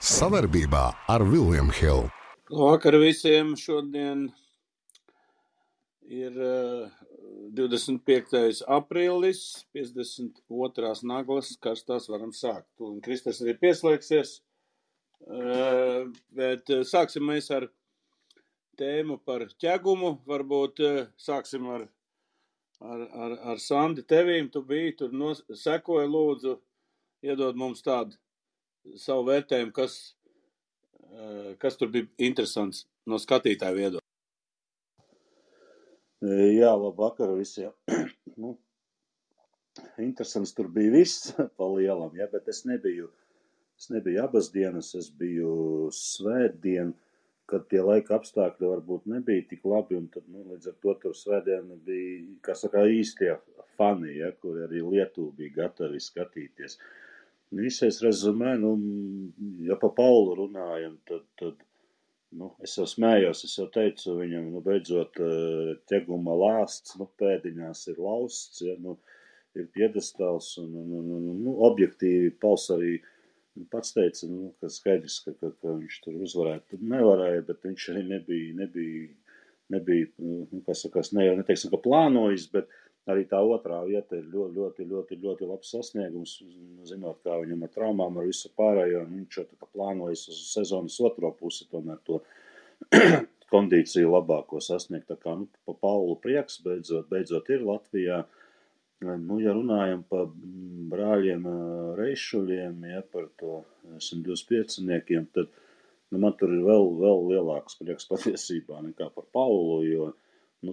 Savarbībā ar William Hill. Labvakar visiem! Šodien ir 25. aprīlis, 52. naglas, karstās varam sākt. Un Kristers arī pieslēgsies, bet sāksim mēs ar tēmu par ķegumu. Varbūt sāksim ar Sandi tevīm. Tu biji tur, sekoja, lūdzu, iedod mums tādu savu vērtējumu, kas tur bija interesants no skatītāja viedokļa. Jā, labvakar visiem. Interesants tur bija viss pa lielam, ja, bet es nebiju abas dienas, es biju svētdien, kad tie laika apstākļi varbūt nebija tik labi, un tad, līdz ar to tur svētdiena bija, kā saka, īstie fani, ja, kur arī Lietuva bija gatavi skatīties. Visais rezumē, ja pa Paulu runājam, tad es jau smējos, es jau teicu viņam, beidzot ķeguma lāsts, pēdiņās ir lausts, ja, ir piedestāls, un objektīvi Pauls arī pats teica, ka skaidrs, ka viņš tur uzvarētu. Tur nevarēja, bet viņš arī nebija, kā sakās, ne jau neteiksim, ka plānojis, bet arī tā otrā vieta ir ļoti labs sasniegums, zinot, kā viņam ar traumām, ar visu pārējo, un viņš jau tā kā plānojas uz sezonas otro pusi, tomēr to kondīciju labāko sasniegt. Tā kā, pa Paulu prieks, beidzot ir Latvijā. Ja runājam par brāļiem Reišuļiem, ja par to 125-niekiem, tad man tur ir vēl lielāks prieks patiesībā nekā par Paulu, jo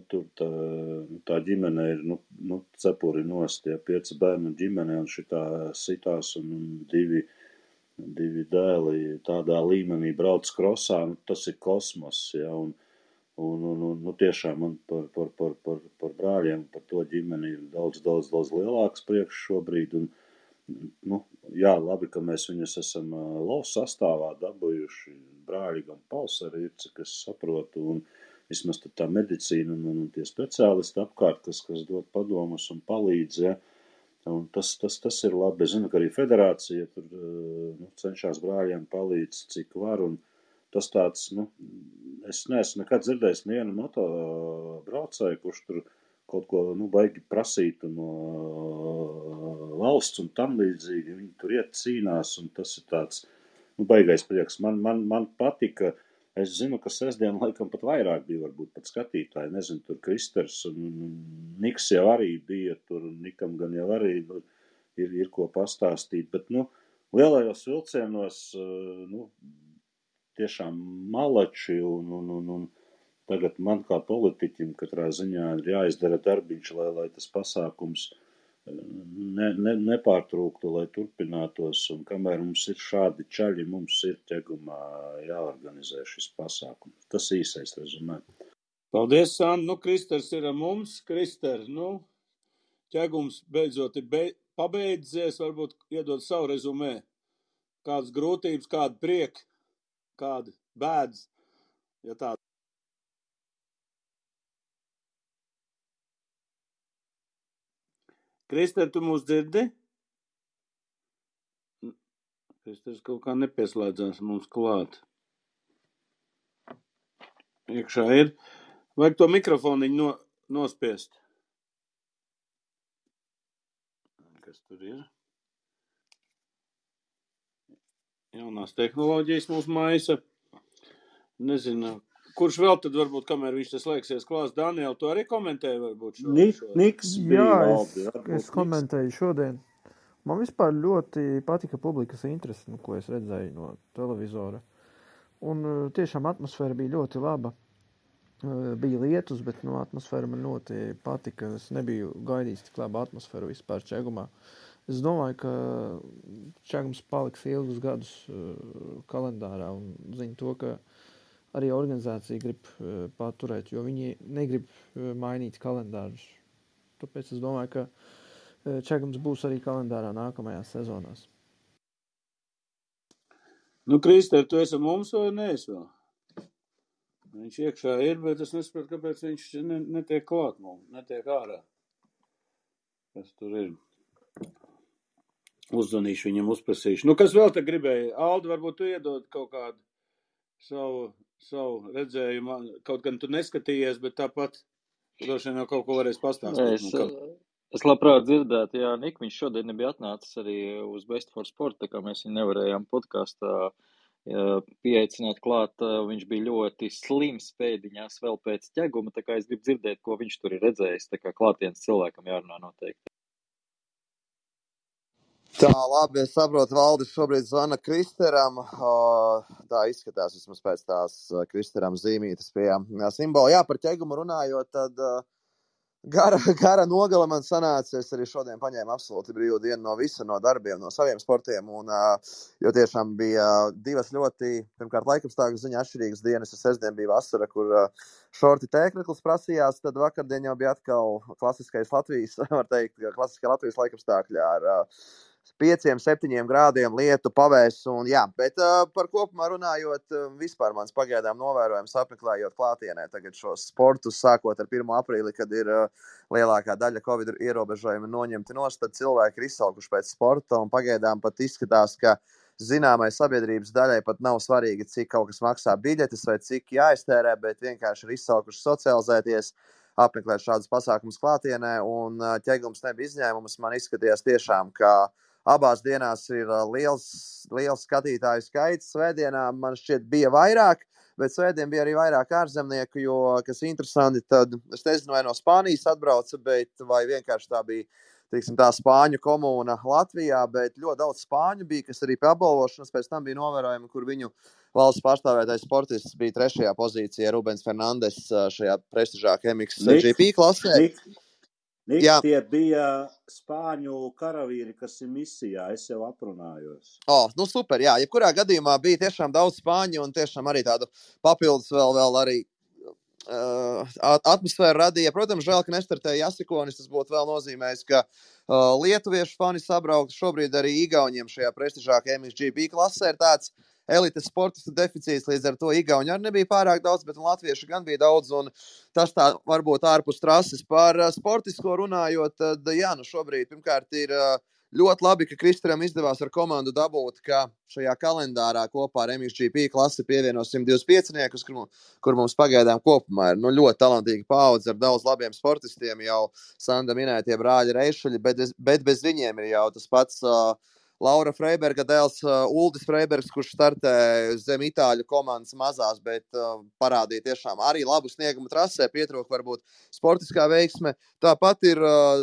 tur tā ģimene ir, cepuri nost, ja 5 bērnu ģimene, un šitā sitās, un divi dēli tādā līmenī brauc krosā, tas ir kosmos, ja, un tiešām man par brāļiem, par to ģimeni ir daudz lielāks priekš šobrīd, un, jā, labi, ka mēs viņus esam LOS sastāvā dabūjuši, brāļi gan Pauls arī ir, cik es saprotu, un vismaz tā medicīna un tie speciālisti apkārt, kas dod padomus un palīdz, ja, un tas ir labi. Es zinu, ka arī federācija tur cenšas brāļiem palīdz, cik var, un tas tāds, es neesmu nekad dzirdējis nevienu moto braucēju, kurš tur kaut ko, baigi prasītu no valsts un tam līdzīgi, viņi tur iet cīnās, un tas ir tāds, baigais prieks. Man patika. Es zinu, ka sestdien laikam pat vairāk bija varbūt pat skatītāji, nezinu, tur Kristers un Niks jau arī bija tur, un Nikam gan jau arī ir ko pastāstīt, bet, lielajos vilcienos, tiešām malači, un tagad man kā politiķim katrā ziņā ir jāizdara darbiņš, lai tas pasākums nepārtrūktu, lai turpinātos, un kamēr mums ir šādi čaļi, mums ir ķegumā jāorganizē šis pasākums. Tas īsais rezumē. Paldies, Sandi. Kristers ir ar mums. Krister, ķegums beidzot ir pabeidzies, varbūt iedod savu rezumē. Kādas grūtības, kāda prieka, kāda bēdas, ja tāda. Krister, tu mūs dzirdi? Kristers kaut kā nepieslēdzās mums klāt. Iekšā ir. Vajag to mikrofoniņu nospiest. Kas tur ir? Jaunās tehnoloģijas mūs maisa. Nezinu. Kurš vēl tad varbūt, kamēr viņš tas slēgsies klās? Daniel, tu arī komentēji varbūt šo? Niks bija labi. Es komentēju šodien. Man vispār ļoti patika publikas interesi, ko es redzēju no televizora. Un tiešām atmosfēra bija ļoti laba. Bija lietus, bet atmosfēra man ļoti patika. Es nebiju gaidījis tik labu atmosfēru vispār Čegumā. Es domāju, ka Čegums paliks ilgus gadus kalendārā un zinu to, ka arī organizācija grib paturēt, jo viņi negrib mainīt kalendārus. Tāpēc es domāju, ka Čegums būs arī kalendārā nākamajās sezonās. Krister, tu esi mums vai neesi vēl? Viņš iekšā ir, bet es nesaprotu, kāpēc viņš netiek klāt mums, netiek ārā. Kas tur ir? Uzzvanīšu viņam, uzprasīšu. Nu, kas vēl te gribēja? Aldi, varbūt tu iedod kaut kādu savu redzējumu. Kaut gan tu neskatījies, bet tāpat droši vien jau kaut ko varēs pastāstīt. Es labprāt dzirdētu, jā, Nik, viņš šodien nebija atnācis arī uz Best for Sport, tā kā mēs viņu nevarējām podkastā pieaicināt klāt. Viņš bija ļoti slims pēdiņās vēl pēc ķeguma, tā kā es gribu dzirdēt, ko viņš tur ir redzējis, tā kā klātienes cilvēkam jārunā noteikti. Tā, labi, es saprotu, Valdis šobrīd zvana Kristeram. Tā izskatās vismaz pēc tās Kristeram zīmītes pie simbola. Jā, par ķegumu runājot, tad gara nogala man sanāca. Es arī šodien paņēmu absolūti brīvu dienu no visa, no darbiem, no saviem sportiem. Jo tiešām bija divas ļoti, pirmkārt, laikapstākļu ziņā atšķirīgas dienas. Sestdien bija vasara, kur šorti tēkreklis prasījās. Tad vakardien jau bija atkal klasiskais Latvijas, var teikt, klasiskā Latvijas laikapstākļi ar 5-7 grādiem lietu pavēs. Bet par kopumā runājot, vispār mans pagaidām novērojums apmeklējot klātienē tagad šos sportus, sākot ar 1. aprīli, kad ir lielākā daļa Covid ierobežojumi noņemti nost, tad cilvēki ir izsalkuši pēc sporta un pagaidām pat izskatās, ka zināmai sabiedrības daļai pat nav svarīgi, cik kaut kas maksā biļetes vai cik jāiztērē, bet vienkārši ir izsalkuši socializēties, apmeklēt šādus pasākumus klātienē, un ķegums nebija izņēmums. Man izskatījās tiešām, ka abās dienās ir liels skatītāju skaits. Svētdienā man šķiet bija vairāk, bet svētdien bija arī vairāk ārzemnieku, jo, kas interesanti, tad es nezinu, vai no Spānijas atbrauca, bet vai vienkārši tā bija, teiksim, tā spāņu komūna Latvijā, bet ļoti daudz spāņu bija, kas arī pie apbalvošanas pēc tam bija novērojami, kur viņu valsts pārstāvētais sportists bija 3. pozīcijā, Rubens Fernandes šajā prestižākajā MXGP klasē. Tie bija spāņu karavīri, kas ir misijā, es jau aprunājos. Super, jā. Jebkurā gadījumā bija tiešām daudz spāņu un tiešām arī tādu papildus vēl arī atmosfēru radīja. Protams, žēl, ka nestartēja Jasikonis, tas būtu vēl nozīmējis, ka lietuviešu fani sabrauktu. Šobrīd arī Igauniem šajā prestižākajā MXGP klasē ir tāds elites sportistu deficīts, līdz ar to Igauņi arī nebija pārāk daudz, bet latviešu gan bija daudz, un tas tā varbūt ārpus trases. Par sportisko runājot, tad šobrīd pirmkārt ir ļoti labi, ka Kristaram izdevās ar komandu dabūt, ka šajā kalendārā kopā ar MXGP klasi pievieno 125-niekus, kur mums pagaidām kopumā ir ļoti talantīga paudze ar daudz labiem sportistiem, jau Sanda minētie brāļi Reišuļi, bet bez viņiem ir jau tas pats Laura Freiberga dēls Uldis Freibergs, kurš startē zem itāļu komandas mazās, bet parādīja tiešām arī labu sniegumu trasē, pietrūka varbūt sportiskā veiksme. Tāpat ir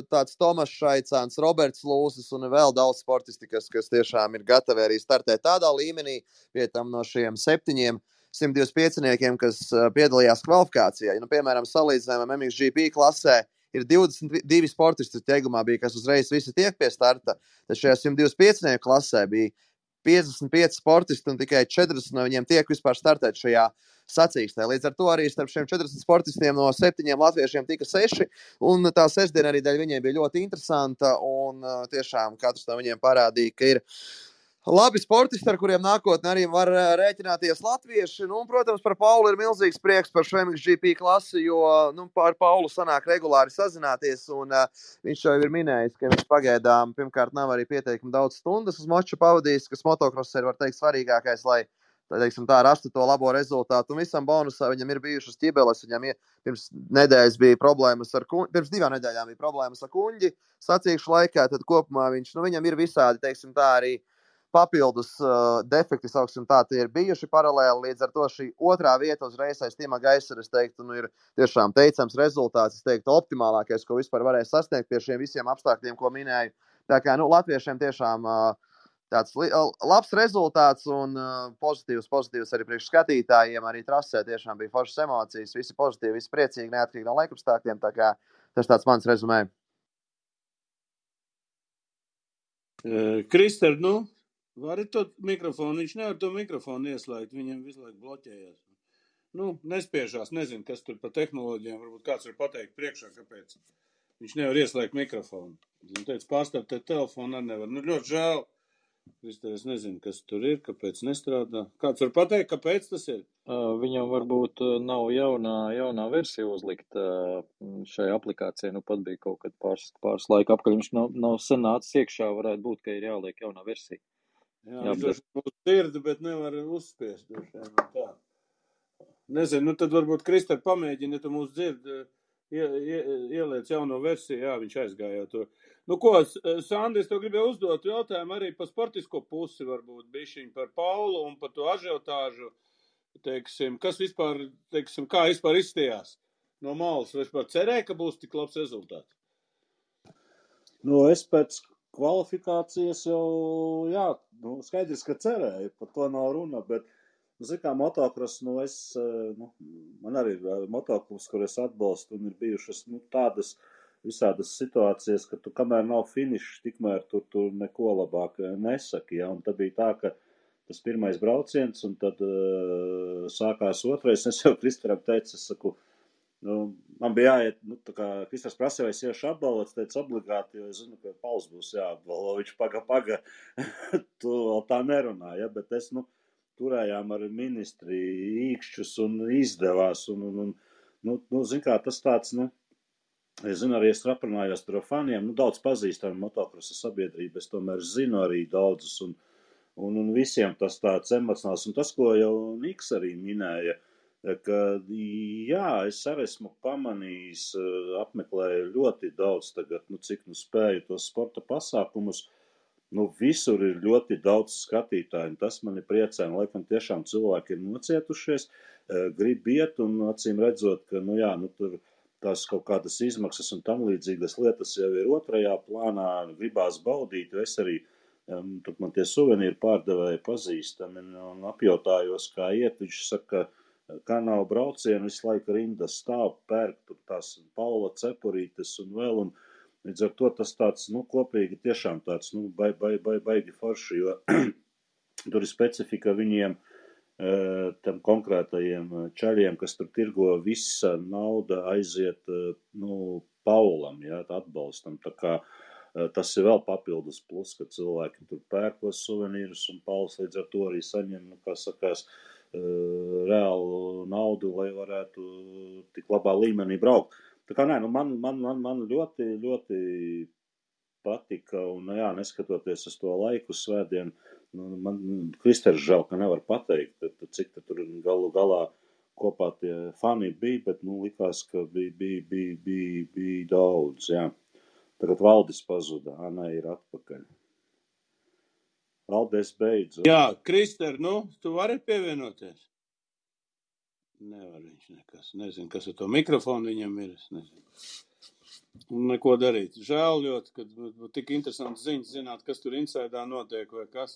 tāds Tomas Šaicāns, Roberts Lūsis un vēl daudz sportisti, kas tiešām ir gatavi arī startēt tādā līmenī, pie tam no šiem 7 125-niekiem, kas piedalījās kvalifikācijā. Piemēram, salīdzinājumam MXGP klasē ir 22 sportisti ķegumā bija, kas uzreiz visi tiek pie starta. Tad šajā 125 klasē bija 55 sportisti un tikai 40 no viņiem tiek vispār startēt šajā sacīkstē. Līdz ar to arī starp šiem 40 sportistiem no 7 latviešiem tika 6, un tā sestdiena arī dēļ viņiem bija ļoti interesanta, un tiešām katrs no viņiem parādīja, ka ir labi sportisti, ar kuriem nākotnē arī var rēķināties latvieši. Protams, par Paulu ir milzīgs prieks par šo MXGP klasi, jo ar Paulu sanāk regulāri sazināties, un viņš jau ir minējis, ka viņš pagaidām pirmkārt nav arī pieteikumi daudz stundas uz moču pavadījis, kas motocross ir, var teikt, svarīgākais, lai rastu to labo rezultātu. Un visam bonusā viņam ir bijušas ķibeles, viņam pirms 2 nedēļas bija problēmas ar kuņģi sacīkšu laikā, tad kopumā viņam ir visādi, teiksim tā, arī papildus defekti, sauksim tā, tie ir bijuši paralēli, līdz ar to šī 2. vieta uzreiz aiz Tima Gaisera, es teiktu, ir tiešām teicams rezultāts, es teiktu, optimālākais, ko vispār varēja sasniegt pie šiem visiem apstākļiem, ko minēju. Tā kā, latviešiem tiešām tāds labs rezultāts un pozitīvs arī priekš skatītājiem, arī trasē tiešām bija foršas emocijas, visi pozitīvi, visi priecīgi, neatkarīgi no laikapstākļiem, tā kā tas tāds mans rezumē. Krister, vari to mikrofonu? Viņš nevar to mikrofonu ieslēgt, viņam visu laiku bloķējās. Nespiežās, nezinu, kas tur par tehnoloģijām, varbūt kāds var pateikt priekšā, kāpēc viņš nevar ieslēgt mikrofonu. Teicu, pārstāvēt telefonu arī nevar. Ļoti žēl, Krister, es nezinu, kas tur ir, kāpēc nestrādā. Kāds var pateikt, kāpēc tas ir? Viņam varbūt nav jaunā versija uzlikt šai aplikācijai. Nu, pat bija kaut kad pāris laika apkaļ. Viņš nav sen nācis iekšā, varētu būt, ka ir jāliek jaunā versija. Jā, viņš droši mūs dzird, bet nevar uzspiest. Tā. Nezinu, nu tad varbūt Krister pamēģina, ja tu mūs dzird, ieliec jauno versiju. Jā, viņš aizgāja to. Nu ko, Sandi, es tev gribēju uzdot jautājumu arī par sportisko pusi, varbūt bišķiņ par Paulu un par to ažiotāžu. Teiksim, kas vispār, teiksim, kā vispār izstījās no malas? Vai vispār cerēja, ka būs tik labs rezultāts? Nu, es pēc kvalifikācijas jau, jā, nu, skaidrs, ka cerēju, par to nav runa, bet, nu, kā motokros, nu, man arī ir motoklubs, kur es atbalstu, un ir bijušas, nu, tādas visādas situācijas, ka tu, kamēr nav finišs, tikmēr tu neko labāk nesaki, ja, un tad bija tā, ka tas pirmais brauciens, un tad sākās otrais, es jau Kristeram teicu, es saku, nu, man bija jāiet, nu, tā kā Kristers prasīja, vai es iešu apbalvots, teicu obligāti, jo es zinu, ka Pauls būs jāapbalvo, viņš paga, tu vēl tā nerunā, ja, bet es, nu, turējām ar ministri īkšķus un izdevās, un zin kā, tas tāds, nu, es zinu, arī es aprunājos tur ar faniem, nu, daudz pazīstam motokrosa sabiedrību, es tomēr zinu arī daudzus, un visiem tas tāds emocionāls, un tas, ko jau Niks arī minēja, ka, jā, es arī esmu pamanījis, apmeklēju ļoti daudz tagad, nu, cik nu spēju tos sporta pasākumus, nu, visur ir ļoti daudz skatītāju, un tas mani priecē, un laikam tiešām cilvēki ir nocietušies, grib iet, un acīm redzot, ka, nu, jā, nu, tur tās kaut kādas izmaksas un tam līdzīgas lietas jau ir otrajā plānā, gribās baudīt, jo es arī, tur man tie suvenīri pārdevēji pazīstami, un apjautājos, kā iet, viņš saka, kā nav braucienu, visu laiku rindas stāv, pērk, tur tās Paula cepurītes un vēl, un līdz ar to tas tāds, nu, kopīgi tiešām tāds, nu, baigi forši, jo tur ir specifika viņiem, tam konkrētajiem čaļiem, kas tur tirgo, visa nauda aiziet, nu, Paulam, jā, atbalstam, tā kā tas ir vēl papildus plus, ka cilvēki tur pērkos suvenīrus, un Pauls līdz ar to arī saņem, nu, kā sakās, reālu naudu, lai varētu tik labā līmenī braukt. Tā kā nē, nu man ļoti, ļoti patika, un jā, neskatoties uz to laiku svētdienu, nu, man Kristers žēl, ka nevar pateikt, cik tur galu galā kopā tie fani bija, bet, nu, likās, ka bija daudz, jā. Tagad Valdis pazuda, Anna ir atpakaļ. Valdis beidzu. Jā, Krister, nu, tu vari pievienoties? Nevar viņš nekas. Nezinu, kas ar to mikrofonu viņam ir, es nezinu. Un neko darīt. Žēl ļoti, kad tik interesants ziņas zināt, kas tur insaidā notiek vai kas.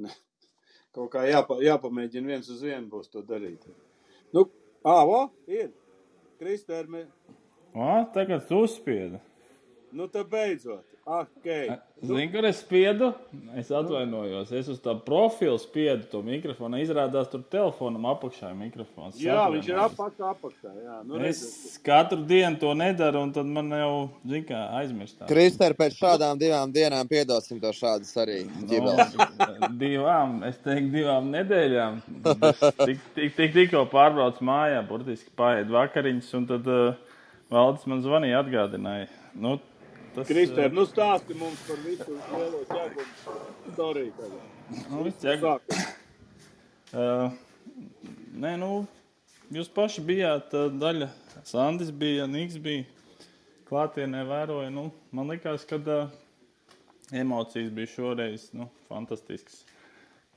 Ne. Kaut kā jāpamēģina viens uz vienu būs to darīt. Nu, ir. Krister, tagad tu uzspiedi. Nu, tad beidzot. Okay. Zini, kur es spiedu? Es atvainojos. Es uz tā profilu spiedu to mikrofonu. Izrādās tur telefonam apakšā ir mikrofons. Jā, viņš ir apakšā. Jā. Nu, es katru dienu to nedaru, un tad man jau, zini kā, aizmirstā. Krister, pēc šādām 2 dienām piedosim to šādas arī ģibeles. Es teiktu 2 nedēļām. Tikko pārbrauc mājā, burtiski paēd vakariņas, un tad Valdis man zvanīja, atgādināja. Nu, Krister, nu stāsti mums par visu lielo ķēgumu storiju tagad. Nē, nu, jūs paši bijāt daļa, Sandis bija, Niks bija, klātienē vēroja, nu, man likās, ka emocijas bija šoreiz, nu, fantastisks.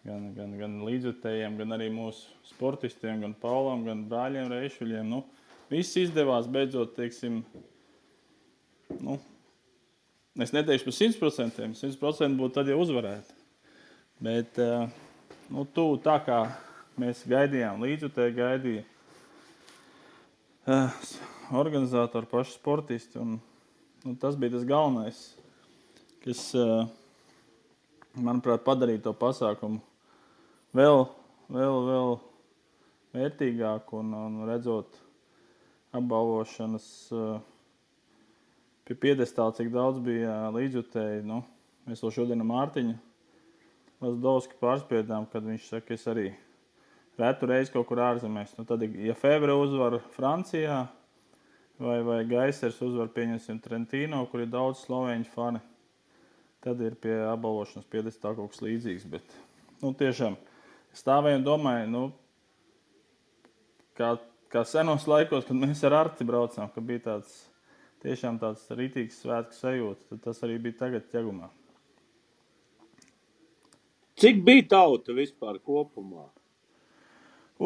Gan līdzjutējiem, gan arī mūsu sportistiem, gan Paulam, gan brāļiem Reišuļiem, nu, viss izdevās beidzot, teiksim, nu, es neteikšu par 100%, 100% būtu tad jau uzvarēt. Bet, nu, tā kā mēs gaidījām, līdzjutēji gaidīja organizatori, paši sportisti, un nu, tas bija tas galvenais, kas, manuprāt, padarīja to pasākumu vēl vērtīgāku un redzot apbalvošanas pie piedestāla, cik daudz bija līdzjutēji. Nu, mēs vēl šodien ar Mārtiņu Lazdovski pārspiedām, kad viņš saka, es arī retu reizi kaut kur ārzemēs. Nu, tad, ja Fevre uzvar Francijā vai Gaisers uzvar, pieņemsim, Trentino, kur ir daudz slovēņu fani, tad ir pie apbalvošanas piedestā kaut kas līdzīgs. Bet, nu, tiešām stāvēju un domāju, nu, kā senos laikos, kad mēs ar Arti braucām, ka bija tiešām tāds rītīgs svētku sajūta, tad tas arī bija tagad Ķegumā. Cik bija tauta vispār kopumā?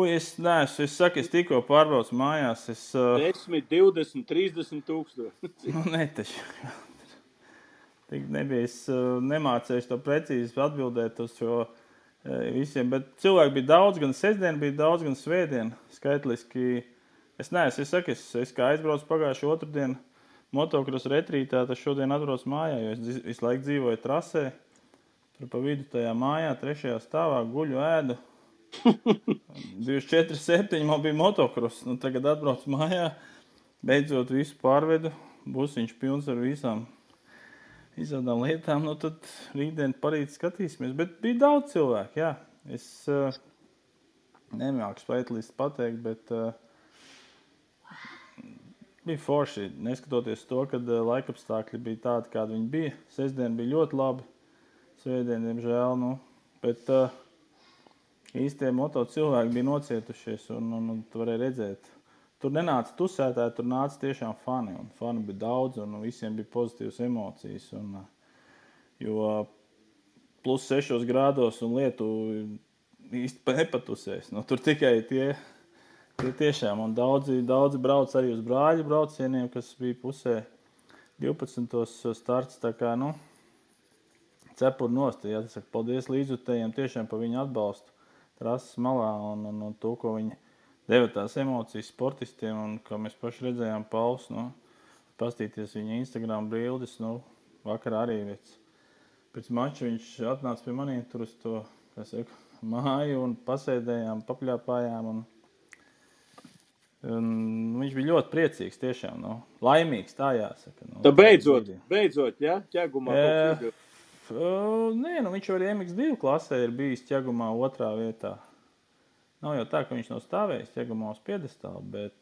Es tikko pārbraucu mājās. 10, 20, 30 tūkstoši. Nu, netaši. Tik nebija. Es nemācēju to precīzi atbildēt uz šo visiem, bet cilvēki bija daudz, gan sestdien bija daudz, gan svētdien. Skaitliski. Es kā aizbraucu pagājušu otrdienu motocross retrītā, tad šodien atbraucu mājā, jo es visu laiku dzīvoju trasē. Tur pa vidu tajā mājā, 3. stāvā, guļu ēdu. 24/7 man bija motocross. Nu, tagad atbraucu mājā, beidzot visu pārvedu. Busiņš pilns ar visādām lietām. Nu, tad rītdien parīt skatīsimies. Bet bija daudz cilvēku, jā. Es nemāku spētlīst pateikt, bet bija forši. Neskatoties to, kad laikapstākļi bija tādi, kādi viņi bija. Sestdien bija ļoti labi. Svētdien, diemžēl, nu, bet īstie moto cilvēki bija nocietušies un tu varēja redzēt. Tur nenāca tusētāji, tur nāca tiešām fani, un fani bija daudz, un visiem bija pozitīvas emocijas, jo plus 6 grādos un lietu īsti nepatusēs. Nu, tur tikai tie tiešām, un daudzi brauc arī uz brāļu braucieniem, kas bija pusē 12. starts, tā kā, nu, cepuri nost, jāsaka, paldies līdzjutējiem tiešām par viņu atbalstu trases malā un to, ko viņi deva tās emocijas sportistiem, un kā mēs paši redzējām Pauls, nu, pastīties viņa Instagram bildes, nu, vakarā arī pēc mača viņš atnāca pie maniem tur uz to, kā saka, māju un pasēdējām, papļāpājām, un viņš bija ļoti priecīgs tiešām, nu, laimīgs, tā jāsaka. Nu, tā beidzot, ja? Ķegumā kaut kas. Nē, nu viņš arī MX2 klasē ir bijis Ķegumā 2. vietā. Nav jau tā, ka viņš nav stāvējis Ķegumā uz piedestālu, bet...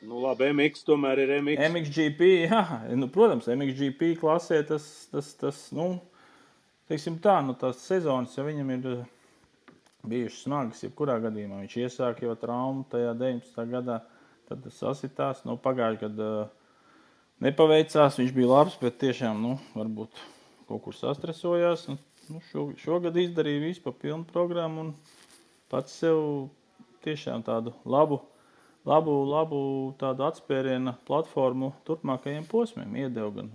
Nu labi, MX tomēr ir MX. MXGP, jā. Nu, protams, MXGP klasē tas nu, teiksim tā, nu tās sezonas, ja viņam ir bijušas smagas, jebkurā gadījumā. Viņš iesāk jau traumu tajā 19. gadā, tad tas sasitās. Nu, pagājuši gadu nepaveicās, viņš bija labs, bet tiešām, nu, varbūt... kaut kur sastresojās. Nu, šogad izdarīja visu pa pilnu programmu un pats sev tiešām tādu labu tādu atspēriena platformu turpmākajiem posmiem iedeva gan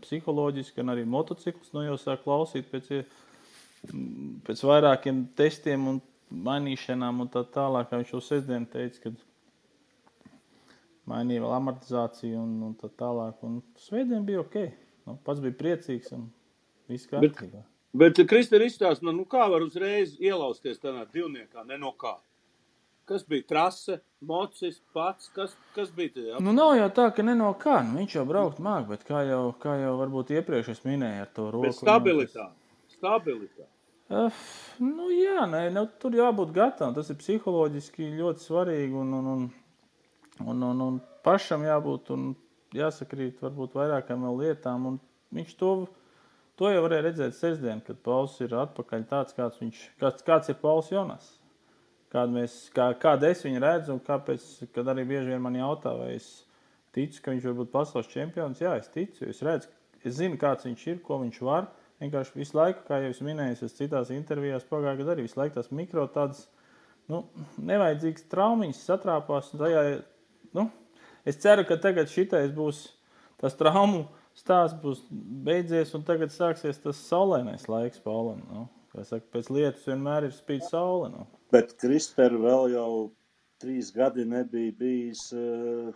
psiholoģiski, gan arī motociklus. Nu, jau sāk klausīt pēc vairākiem testiem un mainīšanām un tā tālāk, kā viņš jau sestdien teica, kad mainīja vēl amortizāciju un tā tālāk. Un svētdien bija ok. Nu, pats bija priecīgs un viss kārtībā. Bet Kristēn izstāst, nu kā var uzreiz ielausties tādā divniekā, ne no kā? Kas bija trase, mocis, pats, kas bija tajā? Nu nav jau tā, ka ne no kā, nu viņš jau braukt māk, bet kā jau varbūt iepriekš es minēju ar to roku. Bet stabilitāte. Nu jā, ne, tur jābūt gatavam, tas ir psiholoģiski ļoti svarīgi un pašam jābūt un jāsakrīt varbūt vairākām vēl lietām, un viņš to jau varēja redzēt sestdien, kad Pauls ir atpakaļ tāds, kāds ir Pauls Jonas. Kāda es viņu redzu un kāpēc, kad arī bieži vien man jautā, vai es ticu, ka viņš var būt pasaules čempions. Jā, es ticu, es redzu, es zinu, kāds viņš ir, ko viņš var. Vienkārši visu laiku, kā jau es minēju, es citās intervijās pagājušajā gadā arī visu laiku tās mikro tādas, nu, nevajadzīgas traumiņas satrāpās. Tajā, nu, es ceru, ka tagad šitais būs tas traumu stāsts būs beidzies un tagad sāksies tas saulēnais laiks Paulam. Nu. Kā saka, pēc lietus vienmēr ir spīd saule. Nu. Bet Krister vēl jau 3 gadi nebija bijis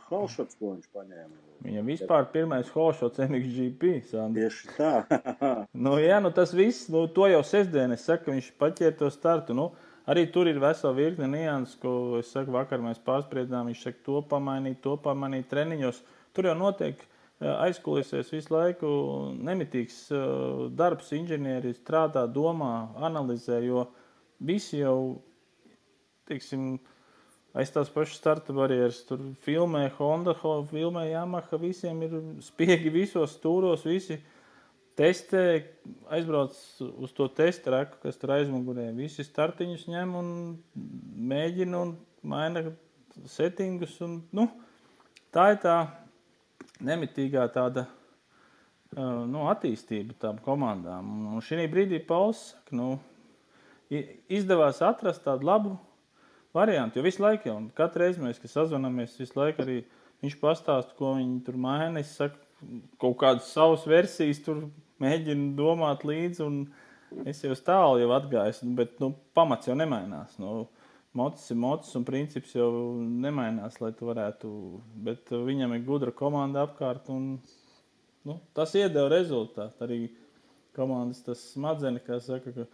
holšots, ko viņš paņēma. Viņam vispār pirmais holšots MXGP. Sandi. Tieši tā. Nu jā, nu tas viss, nu to jau sestdien es saku, viņš paķēra to startu. Nu, arī tur ir vesela virkne nianses, ko es saku, vakar mēs pārspriedām, viņš saka to pamainīt treniņos. Tur jau notiek aizkulisēs visu laiku nemitīgs darbs, inženieri strādā, domā, analizē, jo visi jau, teiksim, aiz tās pašas starta barjeras, tur filmē Honda, filmē Yamaha, visiem ir spiegi visos stūros, visi testē, aizbrauc uz to testa reku, kas tur aizmugurē, visi startiņus ņem un mēģina un maina settingus, un, tā ir tā nemitīgā tāda, attīstība tām komandām. Un šī brīdī Pauls saka, izdevās atrast tādu labu variantu, jo visu laiku jau, katru reizi mēs, kad sazvanamies, visu laiku arī viņš pastāsta, ko viņi tur maina, es saku, kaut kādas savas versijas tur mēģinu domāt līdzi, un es jau tālu jau atgājis, bet, pamats jau nemainās, mocis ir mocis, un princips jau nemainās, lai tu varētu, bet viņam ir gudra komanda apkārt, un, tas iedeva rezultātu, arī komandas tas smadzeni, kā saka, ka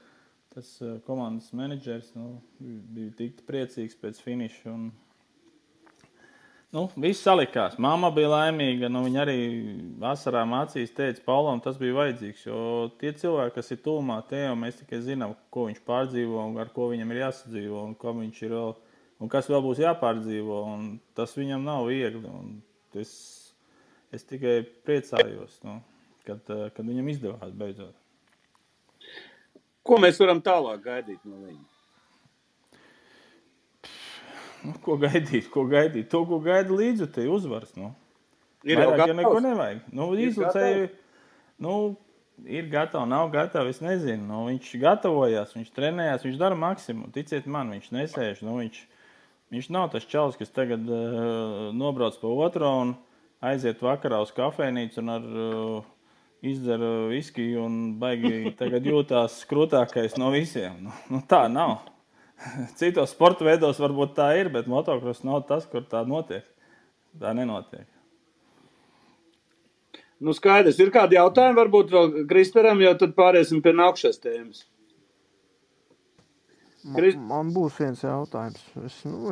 tas komandas menedžers bija tik priecīgs pēc finiša. Un, viss salikās. Mamma bija laimīga. Viņa arī asarām acīs teica, Paulam tas bija vajadzīgs. Jo tie cilvēki, kas ir tuvumā Teo, mēs tikai zinām, ko viņš pārdzīvo un ar ko viņam ir jāsadzīvo un ko viņš ir vēl, un kas vēl būs jāpārdzīvo. Un tas viņam nav viegli. Un es tikai priecājos, kad viņam izdevās beidzot. Ko mēs varam tālāk gaidīt no viņa? Ko gaidīt? To, ko gaida līdzjutēji uzvaras, Ir jau vairāk, gatavs? ja neko nevajag. Līdzjutēji, ir gatavi, nav gatavi, es nezinu. Viņš gatavojās, viņš trenējās, viņš dara maksimumu. Ticiet man, viņš nesēž. Viņš nav tas čalis, kas tagad nobrauc pa otro un aiziet vakarā uz kafejnīcu un ar izdzer viskiju un baigi tagad jūtās krūtākais no visiem. Tā nav. Citos sporta veidos varbūt tā ir, bet motocross nav tas, kur tā notiek. Tā nenotiek. Skaidrs. Ir kādi jautājumi varbūt vēl Kristeram, jo tad pāriesim pie nākšās tēmas. Man būs viens jautājums.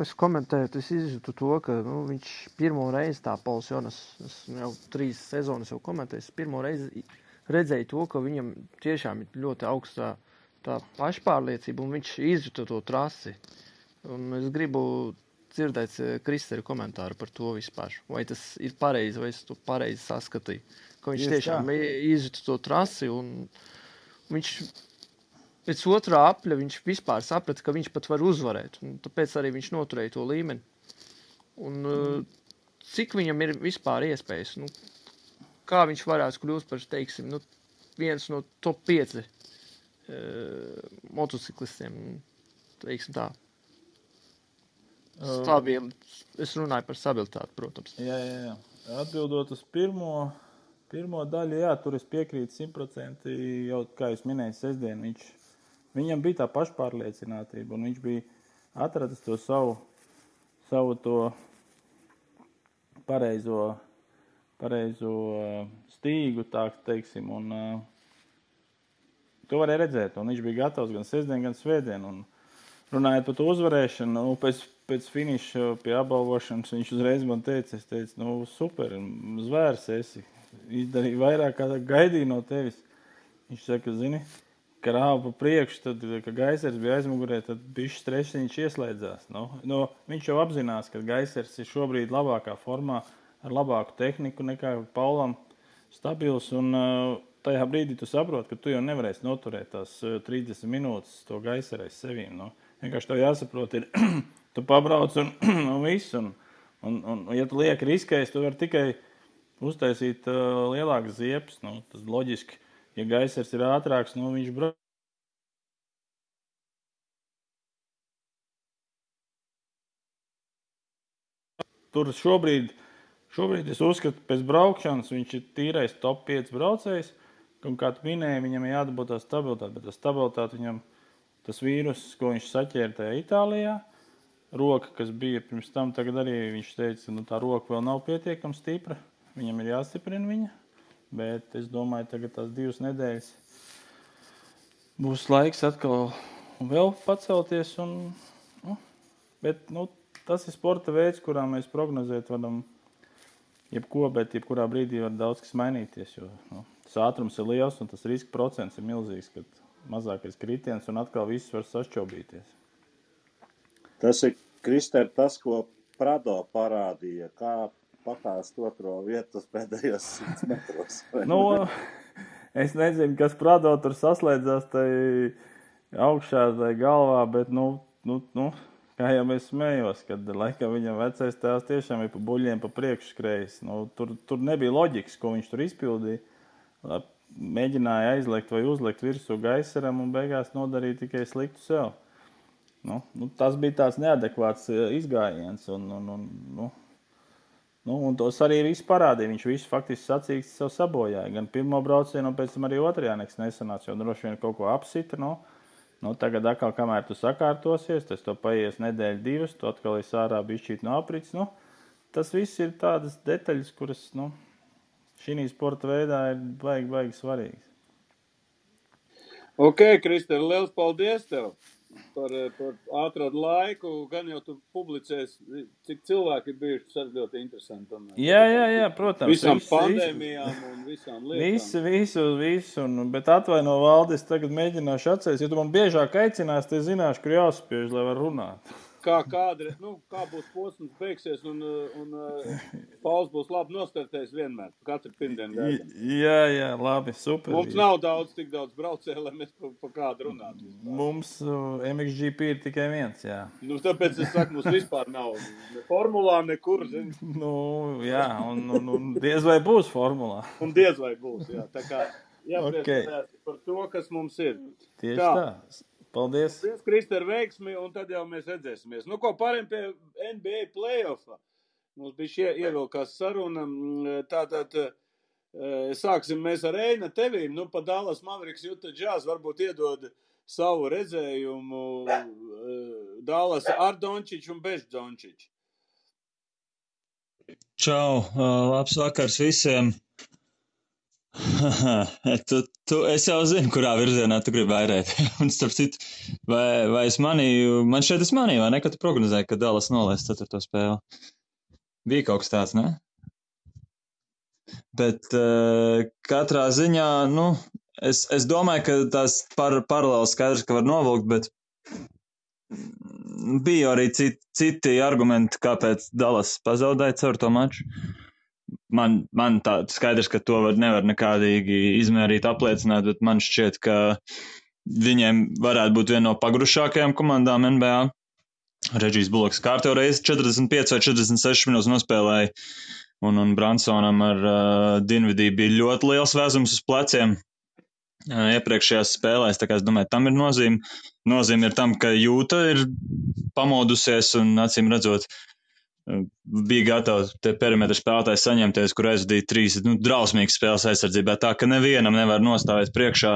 Es komentēju, es izjūtu to, ka viņš pirmo reizi tā Pauls Jonas, es jau 3 sezonas jau komentēju, es pirmo reizi redzēju to, ka viņam tiešām ir ļoti augstā tā pašpārliecība, un viņš izjūta to trasi. Un es gribu dzirdēt Kristera komentāru par to vispār. Vai tas ir pareizi, vai es to pareizi saskatīju. Ka viņš tiešām izjūta to trasi, un viņš pēc otrā apļa viņš vispār saprata, ka viņš pat var uzvarēt. Un tāpēc arī viņš noturēja to līmeni. Un cik viņam ir vispār iespējas? Kā viņš varētu kļūt par, teiksim, viens no top 5 motociklistiem, teiksim tā. Stabili. Es runāju par stabilitāti, protams. Jā. Atbildot uz pirmo daļu, jā, tur es piekrītu 100%, jau, kā jūs minēju, sestdien viņam bija tā pašpārliecinātība, un viņš bija atradis to savu to pareizo stīgu, tā teiksim, un to varēja redzēt, un viņš bija gatavs gan sestdien, gan svētdien, un runājot par to uzvarēšanu, pēc finiša pie apbalvošanas viņš uzreiz man teica, super, zvērs esi, izdarīja vairāk, kā gaidīja no tevis. Viņš saka, zini, ka rāva pa priekšu, tad, ka Gaisers bija aizmugurē, tad bišķi stresiņš ieslēdzās. Viņš jau apzinās, ka Gaisers ir šobrīd labākā formā, ar labāku tehniku nekā Paulam stabils, un tajā brīdī tu saproti, ka tu jau nevarēsi noturēt tās 30 minūtes to Gaiseru aiz sevīm. Vienkārši tev jāsaprot, ir, tu pabrauc un viss, un ja tu lieki riskēs, tu vari tikai uztaisīt lielākas ziepes. Tas loģiski, ja Gaisers ir ātrāks, viņš brauc. Tur šobrīd es uzskatu, pēc braukšanas viņš ir tīrais top 5 braucējs, un kā tu minēji, viņam ir jādabūt tā stabilitāte, bet tā stabilitāte viņam, tas vīrus, ko viņš saķēra tajā Itālijā, roka, kas bija pirms tam, tagad arī viņš teica, tā roka vēl nav pietiekami stipra, viņam ir jāstiprina viņa, bet es domāju, tagad tās 2 nedēļas būs laiks atkal vēl pacelties, bet tas ir sporta veids, kurā mēs prognozēt varam bet jebkurā brīdī var daudz kas mainīties, jo tas ātrums ir liels un tas riska procents ir milzīgs, kad mazākais kritiens un atkal viss var sašķobīties. Tas ir, Krister, tas, ko Prado parādīja, kā pakāst otro vietu pēdējos 100 metros. Es nezinu, kas Prado tur saslēdzās tai augšā, tai galvā, bet, kā jau es smējos, kad laikam viņam vecais tēvs tiešām ir pa buļļiem pa priekšu skrējis. Tur nebija loģikas, ko viņš tur izpildīja. Mēģināja aizliekt vai uzliekt virsū gaisaram un beigās nodarīja tikai sliktu sev. Tas bija tāds neadekvāts izgājiens un tos arī visu parādīja. Viņš visu faktiski sacīksti sev sabojāja. Gan pirmo braucienu un pēc tam arī otrajā nekas nesanāca, jo droši vien kaut ko apsita. Tagad atkal, kamēr tu sakārtosies, tas to paies nedēļu, 2, tu atkal esi ārā bišķīt no aprits. Tas viss ir tādas detaļas, kuras šī sporta veidā ir baigi svarīgas. Ok, Krister, liels paldies tev par atradu laiku. Gan jau tu publicēsi, cik cilvēki ir bijuši, tas ir ļoti interesanti. Jā, protams. Visām pandēmijām un visām lietām. Visu. Bet atvaino, Valdis, tagad mēģināšu atcerēties. Ja tu man biežāk aicinās, tad zināšu, kur jāspiež, lai var runāt. Kā būs posms beigsies un Pauls būs labi nostartējis vienmēr. Katru pirmdienu gaidām. Jā, labi, super. Mums nav tik daudz braucēju, lai mēs pa kādu runātu. Mums MXGP ir tikai viens, jā. Tāpēc es saku, mums vispār nav ne formulā, nekur. Jā, un diez vai būs formulā. Un diez vai būs, jā. Tā kā jāpriecājās par to, kas mums ir. Tieši tā. Paldies. Paldies, Krister, veiksmi, un tad jau mēs redzēsimies. Ko pārējiem pie NBA play-offa? Mums bija ievilkās saruna. Tātad sāksim mēs ar Eina tevīm. Pa Dallas Mavericks Utah Jazz varbūt iedod savu redzējumu Dallas ar Dončiču un bez Dončiču. Čau, labs vakars visiem. Es jau zinu, kurā virzienā tu gribi vairēt. Un starp citu, vai es manīju, man šeit es manīju, vai ne, ka tu prognozēji, ka Dallas nolēs 4. spēli. Bija kaut kas tāds, ne? Bet katrā ziņā, es domāju, ka tās paralēli skaidrs, ka var novilkt, bet bija arī citi argumenti, kāpēc Dallas pazaudēja caur to maču. Man tā skaidrs, ka to nevar nekādīgi izmērīt, apliecināt, bet man šķiet, ka viņiem varētu būt viena no pagrušākajām komandām NBA. Regijs Buloks kārtējo reizi 45 vai 46 minūtes nospēlēja, un Bransonam ar Dinvidī bija ļoti liels vēzums uz pleciem iepriekšējās spēlēs, tā kā es domāju, tam ir nozīme. Nozīme ir tam, ka Jūta ir pamodusies un acīm redzot, bija gatavs te perimetra spēlētājs saņemties, kur aizvadīja 3 drausmīgas spēles aizsardzībā, tā ka nevienam nevar nostāvēt priekšā.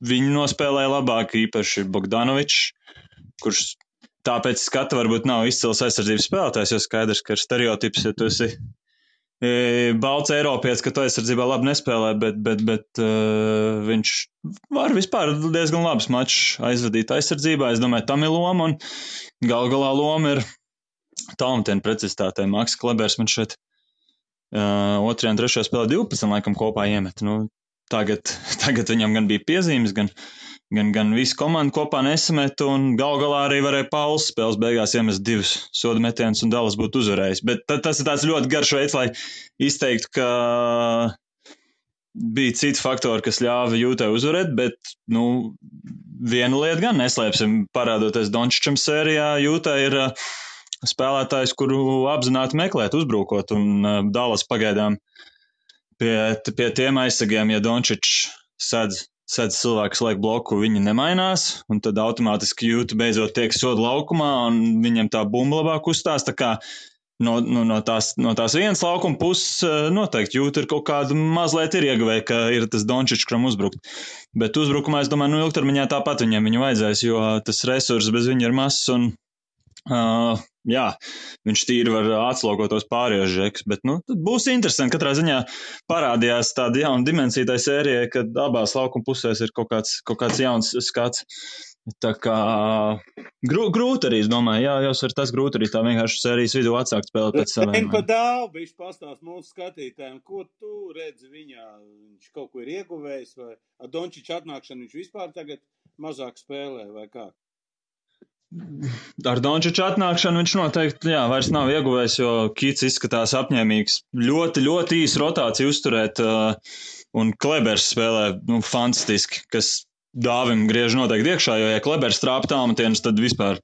Viņi nospēlēja labāk, īpaši Bogdanovičs, kurš tāpēc skata varbūt nav izcils aizsardzības spēlētājs, jo skaidrs, ka ir stereotips, ja tu esi balts Eiropietis, ka tu aizsardzībā labi nespēlē, bet viņš var vispār diezgan labs mačs aizvadīt aizsardzībā. Es domāju, tam ir loma, un galā loma ir Talmutiena precizitātei. Maks Klebers man šeit 2. un 3. spēlē 12 laikam kopā iemet. Tagad viņam gan bija piezīmes, gan visu komandu kopā nesamet, un galā arī varēja Pauls spēles beigās iemest 2 soda metienus, un Dallas būtu uzvarējis. Bet tas ir tāds ļoti garš veids, lai izteiktu, ka bija citi faktori, kas ļāva Jūtai uzvarēt, bet, viena lieta gan neslēpsim, parādoties Dončičam sērijā, Jūtai ir spēlētājs, kuru apzināti meklēt, uzbrukot, un Dallas pagaidām pie tiem aizsargiem, ja Dončičs sedz cilvēks laik bloku, viņi nemainās, un tad automātiski Jūta beidzot tiek soda laukumā, un viņam tā bumba labāk uzstās, tā kā no tās vienas laukuma puses noteikti Jūta ir kaut kādu mazliet ir ieguvēja, ka ir tas Dončičs, kuram uzbrukt. Bet uzbrukumā, es domāju, ilgtermiņā tāpat viņu vajadzēs, jo tas resurs bez viņa ir mazs, un viņš tīri var atslogot tos pārējos žekus, bet tad būs interesanti. Katrā ziņā parādījās tāda jauna dimensija tai sērijai, kad abās laukuma pusēs ir kaut kāds jauns skats. Tā kā Grūti arī, es domāju, jāsver tas grūti arī tā vienkārši sērijas vidū atsākt spēlēt pēc saviem. Reini pa Dāvu, bišķi pastāst mūsu skatītājiem, ko tu redzi viņā? Viņš kaut ko ir ieguvējis vai ar Dončiča atnākšanu viņš vispār tagad mazāk spēlē vai kā? Ar Dončiča atnākšanu viņš noteikti, vairs nav ieguvējis, jo Kits izskatās apņēmīgs. Ļoti, ļoti īsu rotāciju uzturēt, un Klebers spēlē, fantastiski, kas Dāvim griež noteikti iekšā, jo, ja Klebers trāpa tālmetienus, tad vispār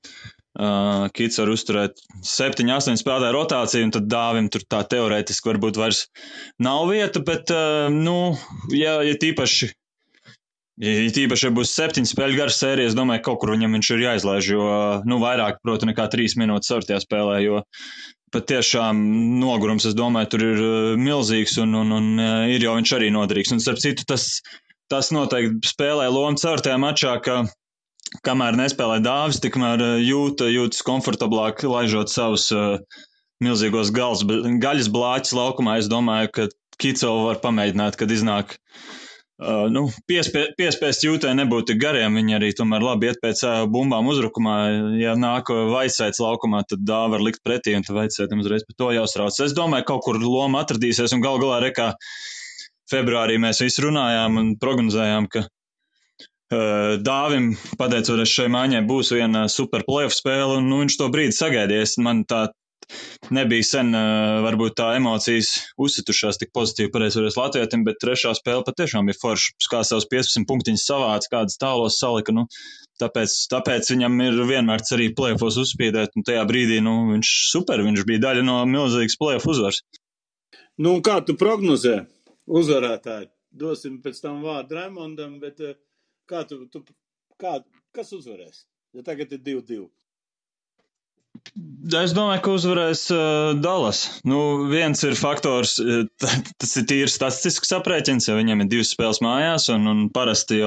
Kits var uzturēt 7-8 spēlētāju rotāciju, un tad Dāvim tur tā teorētiski varbūt vairs nav vieta, bet, ja tīpaši, ja būs 7 spēļu garas sērijas, es domāju, kaut kur viņam viņš ir jāizlaiž, jo, vairāk, proti, nekā 3 minūtes sortajā spēlē, jo pat tiešām nogurums, es domāju, tur ir milzīgs, un ir jau viņš arī noderīgs, un starp citu tas noteikti spēlē lomu ceturtajā mačā, ka kamēr nespēlē Dāvis, tikmēr jūtas komfortablāk, laižot savus milzīgos gaļas blāķus laukumā. Es domāju, ka Kicovu var pamēģināt, kad iznāk piespiest jūtē nebūt tik gariem. Viņi arī tomēr labi iet pēc bumbām uzrukumā. Ja nāk Vaicēts laukumā, tad Dāvi var likt pretī, un tad Vaicētam uzreiz par to jāuztrauc. Es domāju, kaut kur loma atradīsies, un galā rekā februārī mēs visi runājām un prognozējām, ka Dāvim, pateicoties šai maiņai, būs viena super playoff spēle, un viņš to brīdi sagaidījies. Man tā nebija sen, varbūt tā emocijas uzsitušās tik pozitīvi pareizoties latvietim, bet trešā spēle patiešām bija forša. Kā savus 15 punktiņus savāc, kādas tālos salika, tāpēc viņam ir vienmēr arī playoffos uzspīdēt, un tajā brīdī, viņš bija daļa no milzīgas playoff uzvaras. Kā tu prognozē uzvarētāji? Dosim pēc tam vārdu Raimondam, bet kas uzvarēs? Ja tagad ir 2-2. Es domāju, ka uzvarēs Dallas. Viens ir faktors, tas ir tīri statistisks aprēķins, jo viņiem ir 2 spēles mājās, un parasti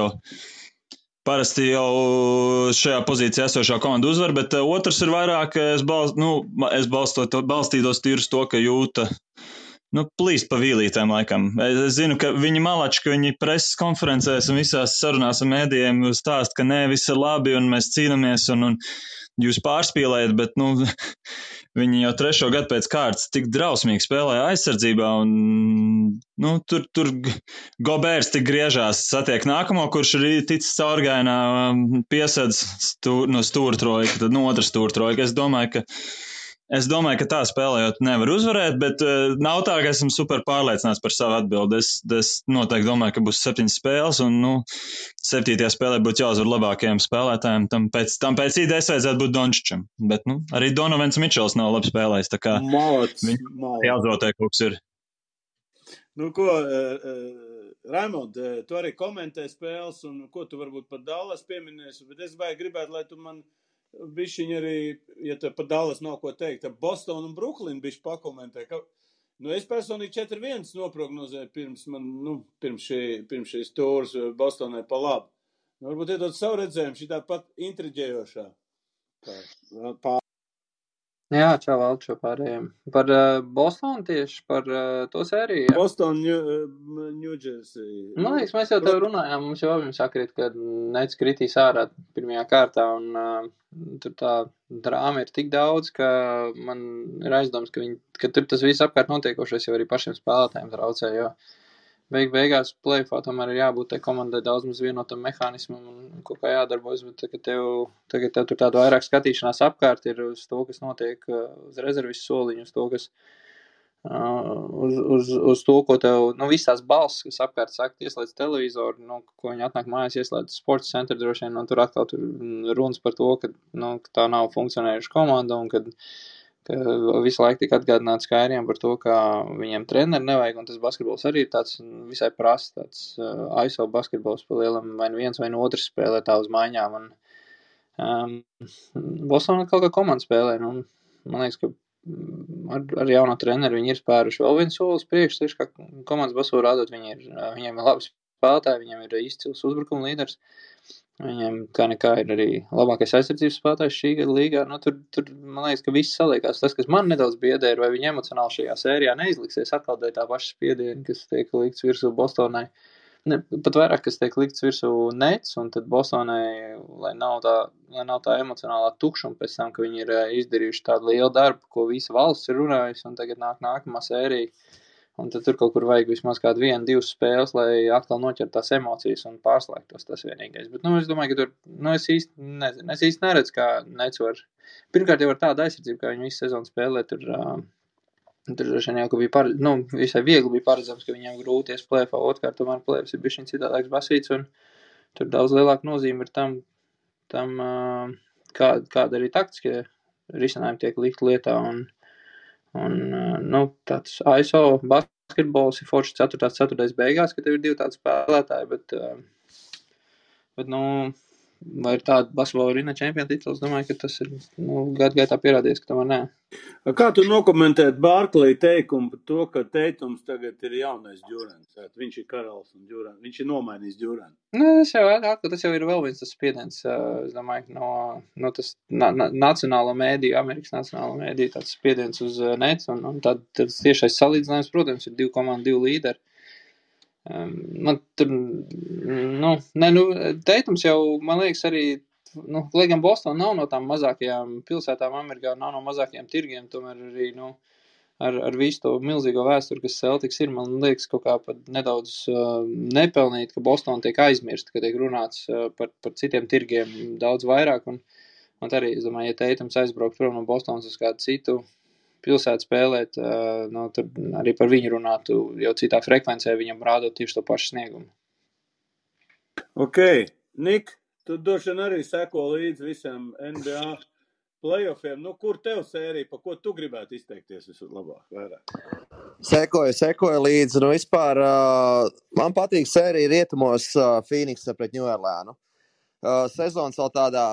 jau šajā pozīcijā esošā komanda uzvar, bet otrs ir vairāk, es balstītos tīri uz to, ka jūta plīst pa vīlītēm laikam. Es zinu, ka viņi malači, ka viņi preses konferencēs un visās sarunās ar mēdījiem stāst, ka nē, viss ir labi un mēs cīnamies un jūs pārspīlējat, bet viņi jau 3. gadu pēc kārtas tik drausmīgi spēlēja aizsardzībā un tur Gobērs tik griežās, satiek nākamo, kurš ir ticis caurgainā, piesedz no stūrtrojka, tad otrs stūrtrojka. Es domāju, ka tā spēlējot nevar uzvarēt, bet nav tā, ka esmu super pārliecināts par savu atbildi. Es noteikti domāju, ka būs 7 spēles, un 7. spēlē būtu jāuzvar labākajiem spēlētājiem. Tam pēc idejas vajadzētu būt Dončičam, bet arī Donovans Mičels nav labi spēlējis, tā kā viņam jāuzvotē kaut kas ir. Raimond, tu arī komentē spēles, un ko tu varbūt par Dallas pieminēsi, bet es gribētu, lai tu man bišķiņ arī, ja te par Dallas nav ko teikt, Boston un Brooklyn bišķi pakomentē, ka, es personīgi 4-1 noprognozēju pirms šīs tūras Bostonai pa labu. Varbūt iedot savu redzējumu, šī tā pat intriģējošā. Jā, čau Valčo pārējiem. Par Bostonu tieši, par to sēriju, ja? Boston, New Jersey. Man liekas, mēs jau tev runājām, mums jau abiem sakrīt, ka Nets kritīs ārā pirmajā kārtā, un tur tā drāma ir tik daudz, ka man ir aizdoms, ka tur tas viss apkārt notiekošais jau arī pašiem spēlētājiem traucē, jo beigās play-offā tomēr ir jābūt tai komandai daudz maz vienotam mehānismam un kaut kā jādarbojas, bet tagad tev tur tāda vairāk skatīšanās apkārt ir uz to, kas notiek uz rezervis soliņu, uz to, kas uz to, ko tev, viss tās balss, kas apkārt saka, ieslēdz televizoru, ko viņi atnāk mājās, ieslēdz sports centru droši vien, un tur atkal tur runas par to, ka tā nav funkcionējuša komanda, un kad visu laiku tika atgādināts Kairiem par to, ka viņiem treneri nevajag, un tas basketbols arī ir tāds visai prasts, tāds ISO basketbols pa lielam, vai viens vai otrs spēlē tā uz maiņām, un Bostonā kaut kā komanda spēlē, man liekas, ka ar jauno treneri viņi ir spēruši vēl viens solis priekš, tieši kā komandas basu rādot, viņiem ir labi spēlētāji, viņiem ir izcils uzbrukuma līderis, viņiem kā nekā ir arī labākais aizsardzības spēlētājs šī gada līgā. Tur man liekas, ka viss saliekās. Tas, kas man nedaudz biedē, ir, vai viņi emocionāli šajā sērijā neizliksies atkal dēļ tā paša spiediena, kas tiek likts virsū Bostonai. Ne, pat vairāk, kas tiek likts virsū nets, un tad Bostonai, lai nav tā emocionālā tukšuma pēc tam, ka viņi ir izdarījuši tādu lielu darbu, ko visa valsts ir runājusi, un tagad nāk nākamā sērija, un tad tur kaut kur vajag vismaz kādu 1-2 spēles, lai atkal noķert tās emocijas un pārslēgtos tas vienīgais. Bet, es domāju, ka tur, es īsti neredzu, kā nets var. Pirmkārt jau ar tādu aizsardzību, kā viņi visu sezonu spēlē, tur droši vien jau, ka bija visai viegli bija paredzams, ka viņiem grūties plēfā, otrkārt tomēr plēfs ir bišķiņ citādāks basīts, un tur daudz lielāka nozīme ir tam kāda arī taktiskie risinājumi tiek likt lietā, un tāds ISO basketbols ir forši 4. beigās, ka tev ir 2 tādi spēlētāji, bet vai ir tāda basketbola arīna čempiona tituls, domāju, ka tas ir gadu gaitā pierādījies, ka tomēr nē. Kā tu nokomentēt Barkley teikumu par to, ka Teitums tagad ir jaunais Džurants? Viņš ir karalis un Džurants. Viņš ir nomainījis Džurantu. Tas jau ir vēl viens tas spiediens, es domāju, no tas nacionālo mēdīju, Amerikas nacionālo mēdīju, tāds spiediens uz nets, un tad tiešais salīdzinājums, protams, ir 2 komandu, 2 līderi. Man tur, Teitums jau, man liekas, arī, lai gan Boston nav no tām mazākajām pilsētām Amerikā, nav no mazākajiem tirgiem, tomēr arī, ar visu to milzīgo vēsturi, kas Celtics ir, man liekas, kaut kā pat nedaudz nepelnīt, ka Boston tiek aizmirst, ka tiek runāts par citiem tirgiem daudz vairāk, un arī, es domāju, ja Teitums aizbraukt prom no Bostonas uz kādu citu pilsētu spēlēt, tur arī par viņu runātu jau citā frekvencē, viņam rādot tieši to pašu sniegumu. Ok, Nik, tu droši vien arī seko līdz visam NBA playoffiem. Kur tev sērija, pa ko tu gribētu izteikties vislabāk, vairāk? Sekoju līdzi. Vispār man patīk sērija rietumos Phoenixa pret New Orleanu. Sezonas vēl tādā,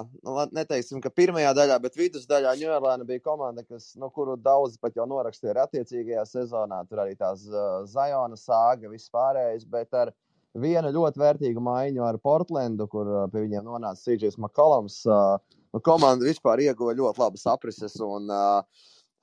neteiksim, ka pirmajā daļā, bet vidusdaļā New Orleans bija komanda, kuru daudzi pat jau norakstīja ar attiecīgajā sezonā. Tur arī tās Ziona sāga, viss pārējais, bet ar vienu ļoti vērtīgu maiņu ar Portlandu, kur pie viņiem nonāca CJs McCollums. Komanda vispār ieguva ļoti labas aprises un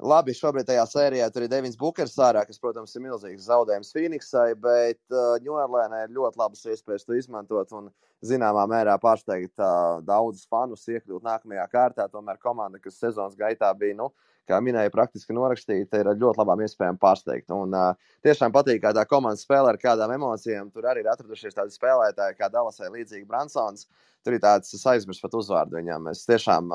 labi, šobrīd tajā sērijā tur ir Devins Bukers ārā, kas, protams, ir milzīgs zaudējums Phoenixai, bet New Orleansai ir ļoti labas iespējas to izmantot un zināmā mērā pārsteigt daudzus fanus iekļūt nākamajā kārtā. Tomēr komanda, kas sezonas gaitā bija, kā minēja, praktiski norakstīta, ir ar ļoti labām iespējām pārsteigt. Un tiešām patīk, kā tā komanda spēlē ar kādām emocijām. Tur arī ir atradušies tādi spēlētāji, kā Dallasai līdzīgi Bransons. Tur ir tāds, es aizmirsu pat uzvārdu viņam. Es tiešām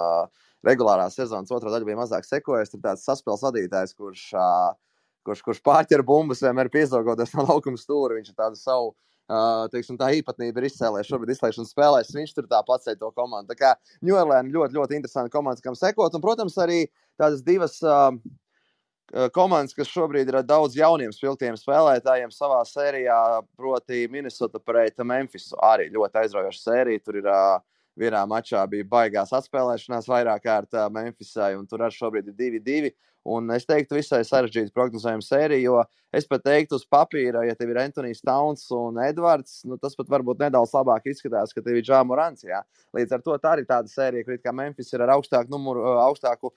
regulārā sezonas otrā daļa bija mazāk sekojis. Tur tāds saspēles vadītājs, kurš pārķer bumbas, vienmēr piezogoties no laukuma stūra. Viņš ir tādu savu, tā īpatnība ir izcēlējis šobrīd izslēgšanas spēlēs. Viņš tur tā pacēja to komandu. Tā kā New Orleans ļoti, ļoti interesanti komandas, kam sekot. Un, protams, arī tādas divas komandas, kas šobrīd ir daudz jauniem spilgtiem spēlētājiem savā sērijā, proti Minnesota pret Memphisu. Arī ļoti aizraujoša sērija. Tur ir vienā mačā bija baigās atspēlēšanās vairāk kārt Memphisai, un tur arī šobrīd ir 2-2. Un es teiktu, visai sarežģīti prognozējuma sērija, jo es pat teiktu uz papīra, ja tev ir Anthony's Towns un Edvards, tas pat varbūt nedaudz labāk izskatās, ka tev ir Ja Morants. Jā. Līdz ar to tā arī tāda sērija, kur kā Memphis ir ar augstāku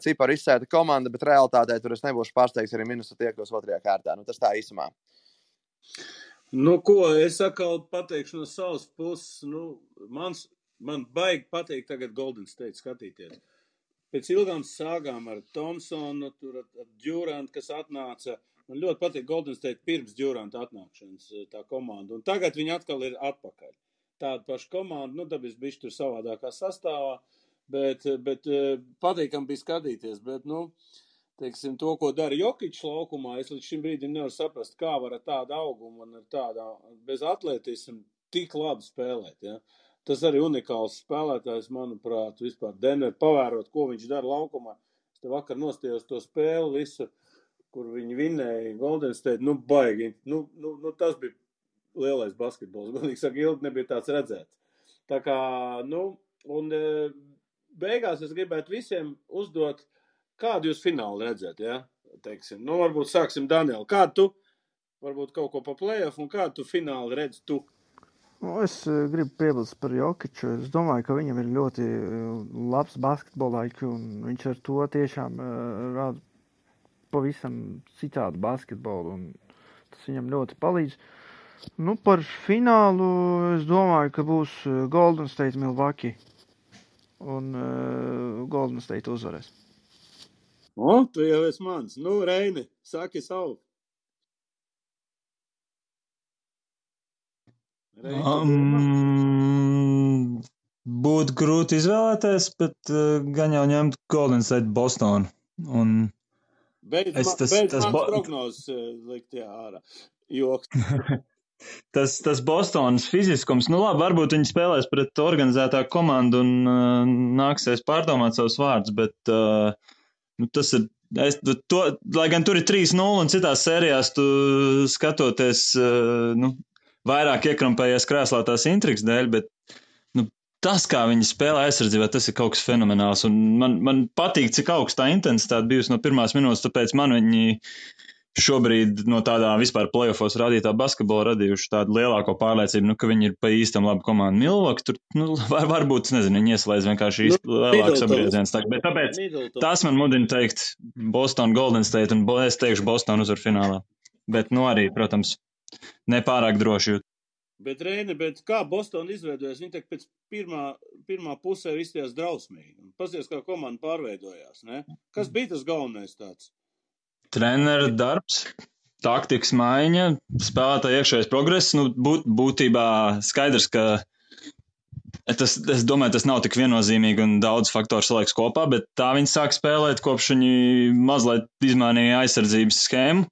ciparu izsēta komanda, bet realitātē tur es nebūšu pārsteigts arī Minnesota iekļūs otrajā kārtā. Tas tā īsumā. Ko es atkal pateikšu no savas puses. Man baigi patīk tagad Golden State skatīties. Pēc ilgām sāgām ar Thompsonu, tur ar Durantu, kas atnāca. Man ļoti patīk Golden State pirms Duranta atnākšanas tā komanda. Un tagad viņi atkal ir atpakaļ. Tāda paša komanda, dabis bišķi tur savādākā sastāvā, bet patīkam bija skatīties. Bet, teiksim, to, ko dara Jokičs laukumā, es līdz šim brīdim nevaru saprast, kā var ar tādu augumu un ar tādu bez atletismu tik labi spēlēt, ja. Tas arī unikāls spēlētājs, manuprāt, vispār Denver pavērot, ko viņš dara laukumā. Es te vakar nostījos to spēli visu, kur viņi vinēja Golden State, baigi. Tas bija lielais basketbols. Godīgi saka, ilgi nebija tāds redzēts. Tā kā, un beigās es gribētu visiem uzdot, kādu jūs fināli redzēt, ja? Teiksim, varbūt sāksim Danielu. Kādu tu, varbūt kaut ko pa playoff, un kādu tu fināli redz tu? Es gribu piebilst par Jokiču. Es domāju, ka viņam ir ļoti labs basketbola IQ, un viņš ar to tiešām rāda pavisam citādu basketbolu, un tas viņam ļoti palīdz. Nu, par finālu es domāju, ka būs Golden State Milwaukee. Un Golden State uzvarēs. O, tu jau esi mans. Nu, Reini, saki savu. Būtu grūti izvēlēties, bet gan jau ņemt Golden State Bostonu. Un Beidz mans prognozes likt ārā. Joks. Tas Bostonas fiziskums, nu labi, varbūt viņi spēlēs pret organizētāku komandu un nāksies pārdomāt savus vārdus, bet tas ir, lai gan tur ir 3-0 un citās sērijās tu skatoties, vairāk iekrampējies krēslā tās intrigas dēļ, bet tas, kā viņi spēlē aizsardzībā, tas ir kaut kas fenomenāls, un man patīk, cik augstā intensitāte bijusi no pirmās minūtes, tāpēc man viņi šobrīd no tādā vispār playoffos radītā basketbola radījuši tādu lielāko pārliecību, ka viņi ir pa īstam labu komandu. Milwaukee tur, varbūt, nezinu, viņi ieslēdz vienkārši lielāku sabriedziens. Bet tāpēc tas man mudina teikt Boston, Golden State, un es teikšu Boston uzvar finālā. Bet, arī, protams, nepārāk droši jūt. Bet, Reini, kā Boston izveidojas? Viņi pēc pirmā pusē izties drausmīgi. Pasies, kā komanda pārveidojās, ne? Kas bija tas galvenais tāds? Trenera darbs, taktikas maiņa, spēlētāja iekšējais progress. Būtībā skaidrs, ka es domāju, tas nav tik viennozīmīgi un daudz faktoru saliekas kopā, bet tā viņi sāk spēlēt, kopš viņi mazliet izmainīja aizsardzības schēmu.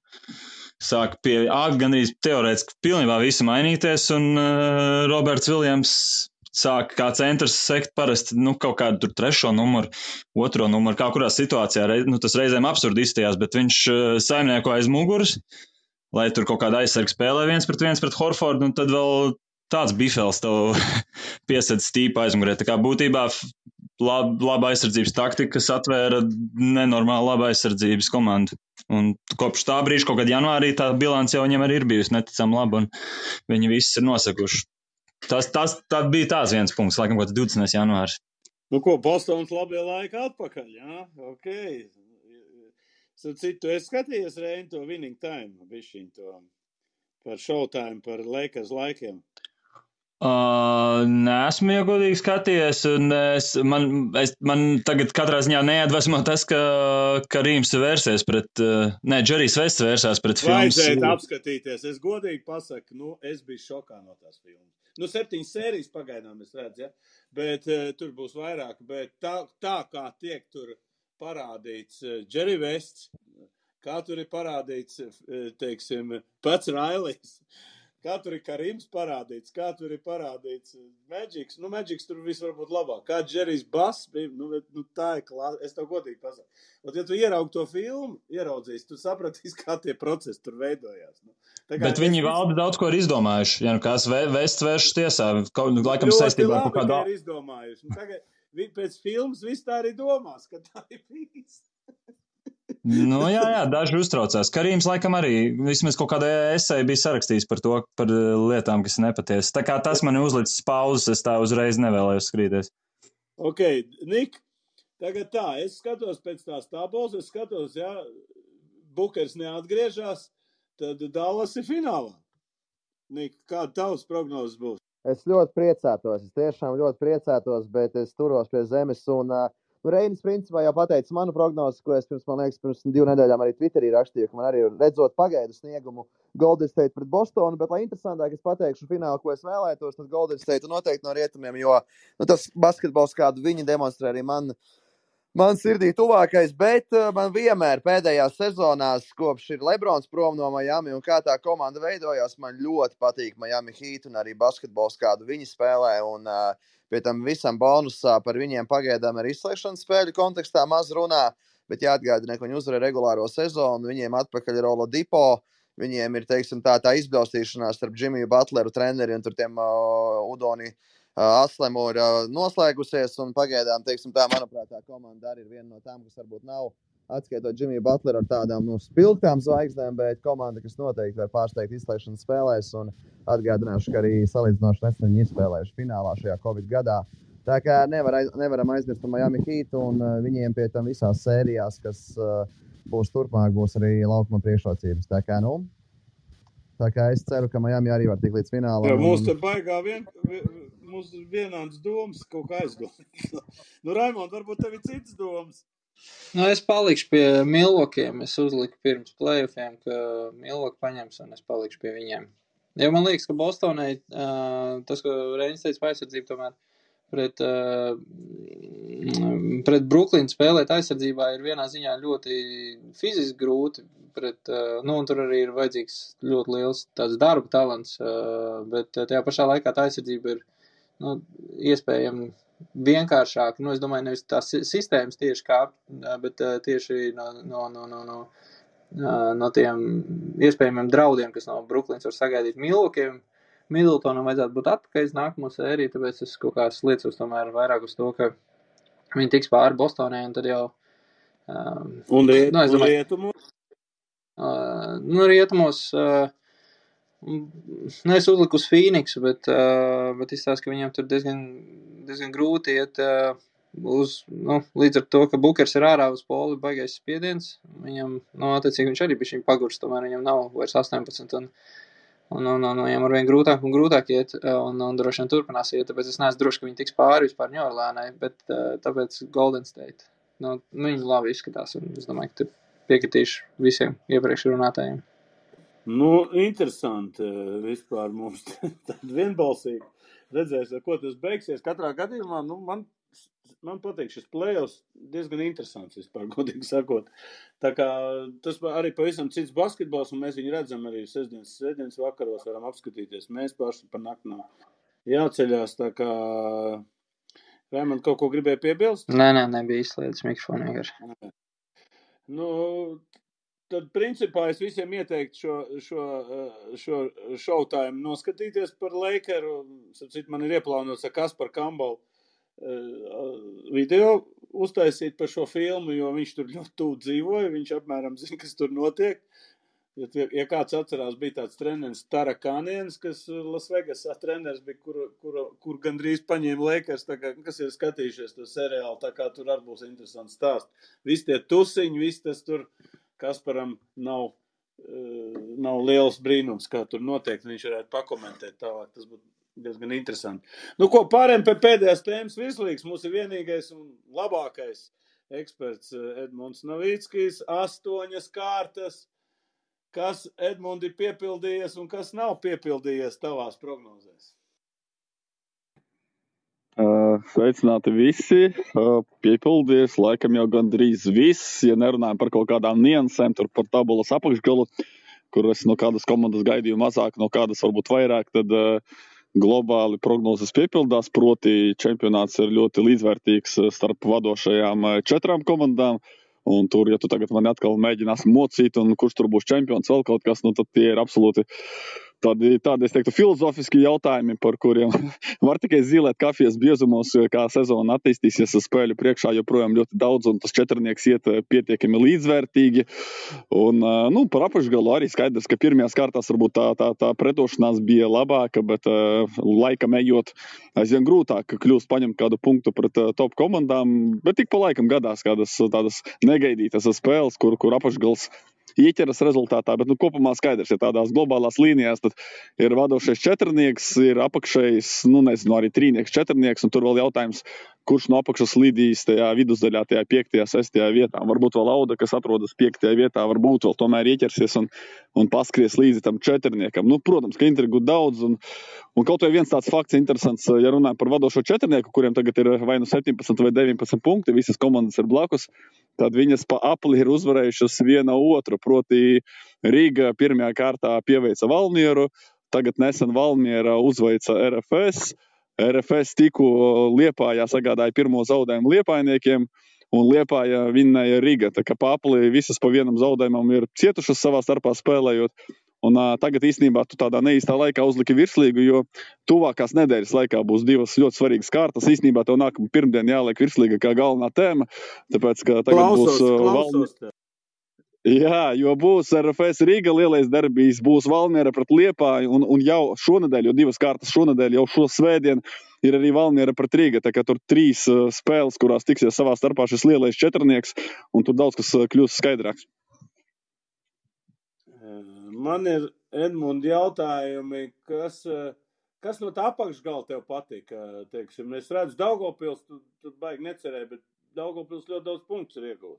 Sāk gandrīz teorētiski pilnībā visu mainīties, un Roberts Viljams sāk kā centrs sekt parasti kaut kādu tur 3. numuru, 2. numuru, kā kurā situācijā, tas reizēm absurdi izstījās, bet viņš saimnieko aiz muguras, lai tur kaut kāda aizsarga spēlē 1-1 pret Horfordu, un tad vēl tāds bifels tev piesedz stīpa aizmugurē. Tā kā būtībā laba aizsardzības taktika, kas atvēra nenormāli laba aizsardzības komandu. Un kopš tā brīža, kaut kad janvārī, tā bilance jau viņam arī ir bijusi neticami laba, un viņi visi ir nosekuši. Tas bija tās viens punkts, laikam, kaut 20. janvārs. Bostonas labie laiki atpakaļ, jā? Ok. Citu, es skatījos, Reini, to winning time, bišķiņ to par showtime, par Lakers laikiem. Neesmu iegodīgi skatījies, un man tagad katrā ziņā neatvēsmo tas, ka Rīms vērsies pret, Džerijs Vests vērsās pret filmas. Vajadzētu apskatīties, es godīgi pasaku, es biju šokā no tās filmas. 7 sērijas pagaidām es redzu, ja? Bet tur būs vairāk, bet tā kā tiek tur parādīts Džerijs Vests, kā tur ir parādīts, teiksim, pats Railijs, kā tur ir Karims parādīts, kā tur ir parādīts Magics. Magics tur viss var būt labāk. Kā Džerijs Bass bija, tā ir klāsa. Es tev godīgi pasaku. Ja tu ieraugi to filmu, ieraudzīs, tu sapratīsi, kā tie procesi tur veidojās. Bet viņi valda daudz ko ir izdomājuši. Ja kāds Vests vēršas tiesā, laikam saistībā ar kaut kādu. Ļoti labi, ka ir izdomājuši. Tagad pēc filmas viss tā arī domās, ka tā ir bijis. Jā, daži uztraucās. Karīms laikam arī vismaz kaut kādā esē bija sarakstījis par to, par lietām, kas nepatiesas. Tā kā tas mani uzlicis pauzes, es tā uzreiz nevēlējos skrīties. Ok, Nik, tagad tā, es skatos pēc tās tabulas, es skatos, Bukers neatgriežās, tad Dallas ir finālā. Nik, kāda tavs prognozes būs? Es ļoti priecātos, es tiešām ļoti priecātos, bet es turos pie zemes un Reinis principā jau pateica manu prognozi, ko es pirms 2 nedēļām arī Twitterī rakstīju, ka man arī redzot pagaidu sniegumu Golden State pret Bostonu, bet lai interesantāk es pateikšu finālu, ko es vēlētos, tad Golden State noteikti no rietumiem, jo tas basketbols, kādu viņi demonstrē arī man sirdī tuvākais, bet man vienmēr pēdējās sezonās, kopš ir Lebrons prom no Miami un kā tā komanda veidojās, man ļoti patīk Miami Heat un arī basketbols, kādu viņi spēlē, un pie tam visam bonusā par viņiem pagaidām ar izslēgšanas spēļu kontekstā maz runā, bet jāatgādina, ka viņi uzvarēja regulāro sezonu, viņiem atpakaļ ir Oladipo, viņiem ir, teiksim, tā izbļaustīšanās starp Jimmiju Butleru treneri un tur tiem Udoni Aslemu ir noslēgusies, un pagaidām, teiksim, tā, manuprāt, tā komanda arī ir viena no tām, kas varbūt nav atskaitot Jimmiju Butleru ar tādām spilgtām zvaigznēm, bet komanda, kas noteikti var pārsteigt izslēgšanas spēlēs, un atgādināšu, ka arī salīdzinoši nesen viņi izspēlējuši finālā šajā Covid gadā. Tā kā nevaram aizmirst par Miami Heat, un viņiem pie tam visās sērijās, kas būs turpmāk, būs arī laukuma priekšrocības. Tā kā, Tā kā es ceru, ka Miami arī var tikt līdz finālam. Jā, mums te baigā mums vienāds domas kaut kā aizdomāt. Raimond, varbūt tev ir citas domas? Es palikšu pie Milwaukie'iem. Es uzliku pirms playoffiem, ka Milwaukee paņems, un es palikšu pie viņiem. Jo man liekas, ka Bostonai, tas, ko Reinis teica par aizsardzību, tomēr pret Brooklyn spēlēt aizsardzībā ir vienā ziņā ļoti fiziski grūti. Un tur arī ir vajadzīgs ļoti liels tāds darba talants, bet tajā pašā laikā tā aizsardzība ir iespējami vienkāršāk. Es domāju, nevis tās sistēmas tieši kāp, bet tieši no tiem iespējamiem draudiem, kas no Brooklyns var sagaidīt Milwaukee'iem. Middletonam vajadzētu būt atpakaļ nākamo sēriju, tāpēc es kaut kā liecos tomēr vairāk uz to, ka viņi tiks pāri Bostonai, un tad jau... Un rietumos? Rietumos... es uzliku uz Phoenixu, bet izstāst, ka viņam tur diezgan grūti iet līdz ar to, ka Bukers ir ārā uz poli, baigais spiediens. Viņam, attiecīgi viņš arī bišķiņ pagurs, tomēr viņam nav vairs 18, un viņam arvien grūtāk un grūtāk iet, un droši vien turpinās iet, tāpēc es neesmu droši, ka viņi tiks pāri vispār New Orleansai, bet tāpēc Golden State. Viņi labi izskatās, un es domāju, ka tur piekritīšu visiem iepriekš runātājiem. Interesanti vispār mums tad vienbalsīgi redzēs, ar ko tas beigsies. Katrā gadījumā, man patīk šis playoffs diezgan interesants vispār, godīgi sakot. Tā kā tas arī pavisam cits basketbols, un mēs viņu redzam arī sestdienas vakaros, varam apskatīties. Mēs paši par nakti jāceļās, tā kā Raimond kaut ko gribēja piebilst? Nē, nebija izslēdzis mikrofonu vienkārši. Tad, principā, es visiem ieteiktu šo showtime noskatīties par Lakeru. Sapcīt, man ir ieplānots ar Kasparu Kambalu video uztaisīt par šo filmu, jo viņš tur ļoti tuvu dzīvoja, viņš apmēram zina, kas tur notiek. Ja kāds atcerās, bija tāds treneris Tarakāniens, kas Las Vegasā treneris bija, kur gandrīz paņēma Lakers, tā kā, kas ir skatījušies to seriālu, tā kā tur arī būs interesants stāsts. Visi tie tusiņi, viss tas tur Kasparam nav liels brīnums, kā tur notiek, viņš varētu pakomentēt tālāk, tas būtu diezgan interesanti. Pārējām pie pēdējās tēmas virslīgas, mums ir vienīgais un labākais eksperts Edmunds Novickis, 8 kārtas, kas Edmundi piepildījies un kas nav piepildījies tavās prognozēs? Sveicināti visi, piepildies, laikam jau gandrīz viss, ja nerunājam par kaut kādām niansēm, tur par tabulas apakšgalu, kur es no kādas komandas gaidīju mazāk, no kādas varbūt vairāk, tad globāli prognozes piepildās, proti čempionāts ir ļoti līdzvērtīgs starp vadošajām 4 komandām, un tur, ja tu tagad mani atkal mēģinās mocīt, un kurš tur būs čempions, vēl kaut kas, tad tie ir absolūti tādi, es teiktu, filozofiski jautājumi, par kuriem var tikai zīlēt kafijas biezumos, kā sezona attīstīsies, spēļu priekšā joprojām ļoti daudz, un tas 4 iet pietiekami līdzvērtīgi. Un, par apakšgalu arī skaidrs, ka pirmajās kārtās varbūt tā pretošanās bija labāka, bet laikam ejot aizvien grūtāk kļūst paņemt kādu punktu pret top komandām, bet tik pa laikam gadās kādas tādas negaidītas spēles, kur apakšgals ieķeras rezultātā, bet kopumā skaidrs, ja tādās globālās līnijās, tad ir vadošais 4, ir apakšējs, arī 3, 4, un tur vēl jautājums, kurš no apakšas lidīs tajā vidusdaļā, tajā 5., 6. vietā. Varbūt vēl Auda, kas atrodas 5. vietā, varbūt vēl tomēr ieķersies un paskries līdzi tam 4. Protams, ka intrigu daudz, un kaut vai viens tāds fakts interesants, ja runājam par vadošo 4, kuriem tagad ir vai 17 vai 19 punkti, visas komandas ir blakus, tad viņas pa apli ir uzvarējušas viena otru, proti Rīga pirmajā kārtā pieveica Valmieru, tagad nesen Valmiera uzveica RFS tikko Liepājā sagādāja pirmo zaudējumu liepājniekiem, un Liepāja vinnēja Riga, tā kā pa apli visas pa vienam zaudējumam ir cietušas savā starpā spēlējot, un tagad īstenībā tu tādā neīstā laikā uzliki virslīgu, jo tuvākās nedēļas laikā būs 2 ļoti svarīgas kārtas, īstenībā tev nākamā pirmdien jāliek virslīga kā galvenā tēma, tāpēc, ka tagad būs Jā, jo būs RFS Rīga lielais derbijs, būs Valmiera pret Liepāju, un jau šonedēļ, jo 2 kārtas šonedēļ, jau šo svētdien ir arī Valmiera pret Rīga, tā kā tur 3 spēles, kurās tiksies savā starpā šis lielais 4, un tur daudz kas kļūs skaidrāks. Man ir Edmundi jautājumi, kas no tā apakšgala tev patika, teiksim? Es redzu, Daugavpils, tu baigi necerēji, bet Daugavpils ļoti daudz punktus ir iegūt.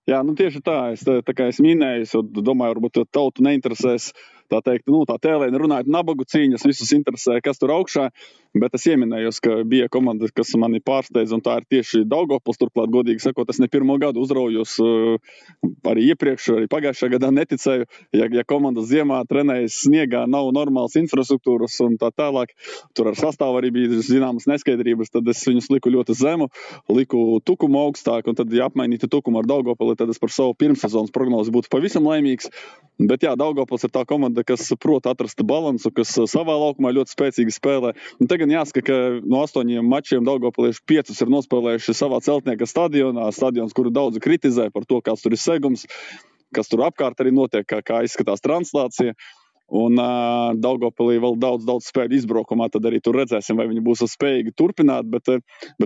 Jā, nu tieši tā, tā kā es minēju, es domāju, varbūt tautu neinteresēs, tā teikt, tā tēlēni runājot nabagu cīņas, visus interesē, kas tur augšā, bet es ieminējos, ka bija komanda, kas mani pārsteidz, un tā ir tieši Daugavpils, turklāt, godīgi sakot, es ne pirmo gadu uzraujos, arī iepriekš, arī pagājušajā gadā neticēju, ja komanda ziemā trenējas sniegā, nav normāls infrastruktūras un tā tālāk, tur ar sastāvu arī bija zināmas neskaidrības, tad es viņus liku ļoti zemu, liku tukumu augstāk, un tad, ja apmainītu tukumu ar Daugavpili, tad es par savu pirmssezonas prognozi būtu pavisam laimīgs. Bet jā, Daugavpils ir tā komanda, kas prot atrast balansu, kas savā laukumā ļoti spēcīgi spēlē. Un tagad jāsaka, ka no 8 mačiem Daugavpilieši 5 ir nospēlējuši savā celtnieka stadionā, stadions, kuru daudzi kritizē par to, kāds tur ir segums, kas tur apkārt arī notiek, kā izskatās translācija. Un Daugavpilī vēl daudz spēļu izbraukumā, tad arī tur redzēsim, vai viņi būs spējīgi turpināt, bet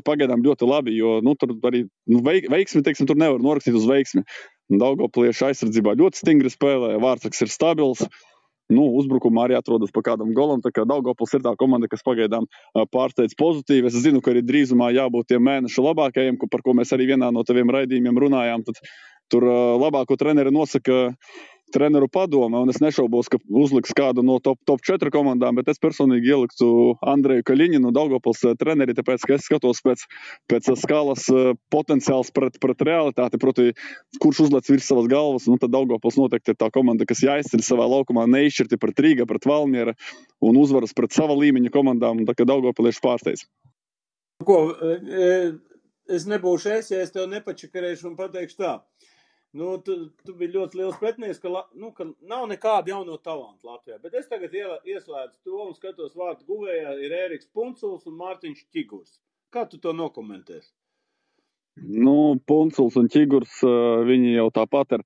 pagaidām ļoti labi, jo tur arī veiksmi, teiksim, tur nevar norakstīt uz veiksmi. Daugavpilieši aizsardzībā ļoti stingri spēlē, Vārtsaks ir stabils, uzbrukumā arī atrodas pa kādam golam, tā kā Daugavpils ir tā komanda, kas pagaidām pārsteidz pozitīvi. Es zinu, ka arī drīzumā jābūt tiem mēnešu labākajiem, par ko mēs arī vienā no taviem raidījumiem runājām, tad tur labāko treneri nosaka treneru padome, un es nešaubos, ka uzliks kādu no top 4 komandām, bet es personīgi ieliktu Andreju Kaļiņinu, Daugavpils treneri, tāpēc, ka es skatos pēc skalas potenciāls pret realitāti, proti, kurš uzlec virs savas galvas, tad Daugavpils noteikti ir tā komanda, kas jāizceļ savā laukumā neizšķirti pret Rīga, pret Valmiera un uzvaras pret sava līmeņa komandām, un tā kā Daugavpilieši pārsteidz. Es nebūšu ja es tev nepačakarēšu un pateikšu tā. Tu biji ļoti liels pretinieks, ka nav nekāda jauno talantu Latvijā, bet es tagad ieslēdzu to un skatos vārtu guvējā ir Ēriks Punculs un Mārtiņš Ķigurs. Kā tu to nokomentēsi? Punculs un Ķigurs, viņi jau tāpat ir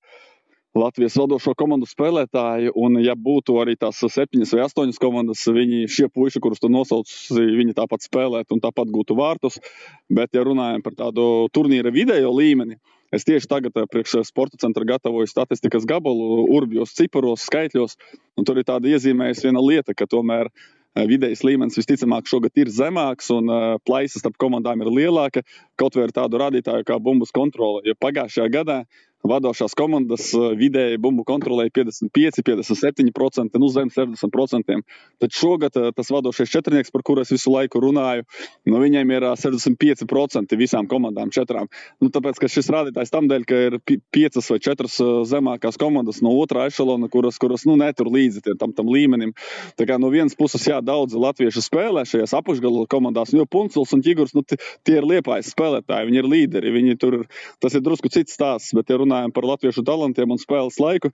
Latvijas vadošo komandu spēlētāji, un ja būtu arī tās 7 vai 8 komandas, šie puiši, kurus tu nosauc, viņi tāpat spēlētu un tāpat gūtu vārtus, bet ja runājam par tādu turnīra vidējo līmeni, es tieši tagad priekš Sporta centra gatavoju statistikas gabalu, urbjos, ciparos, skaitļos, un tur ir tāda iezīmējusi viena lieta, ka tomēr vidējais līmenis visticamāk šogad ir zemāks un plaisa starp komandām ir lielāka, kaut vai ar tādu rādītāju kā bumbas kontrole, jo pagājušajā gadā vadošās komandas vidēji bumbu kontrolēja 55, 57%, zem 60%. Tad šogad tas vadošais četrnieks, par kuru es visu laiku runāju, viņiem ir 65% visām komandām 4. Tāpēc, ka šis rādītājs tamdēļ, ka ir 5 vai 4 zemākās komandas no otrā ešalona, kuras netur līdzi tam līmenim. Tā kā no vienas puses, daudzi latvieši spēlē šajās apakšgala komandās, jo Punculs un Ķigurs, tie ir Liepājas spēlētāji, viņi ir līderi, tas ir drusku cits stāsts, bet ja runājam par latviešu talantiem un spēles laiku,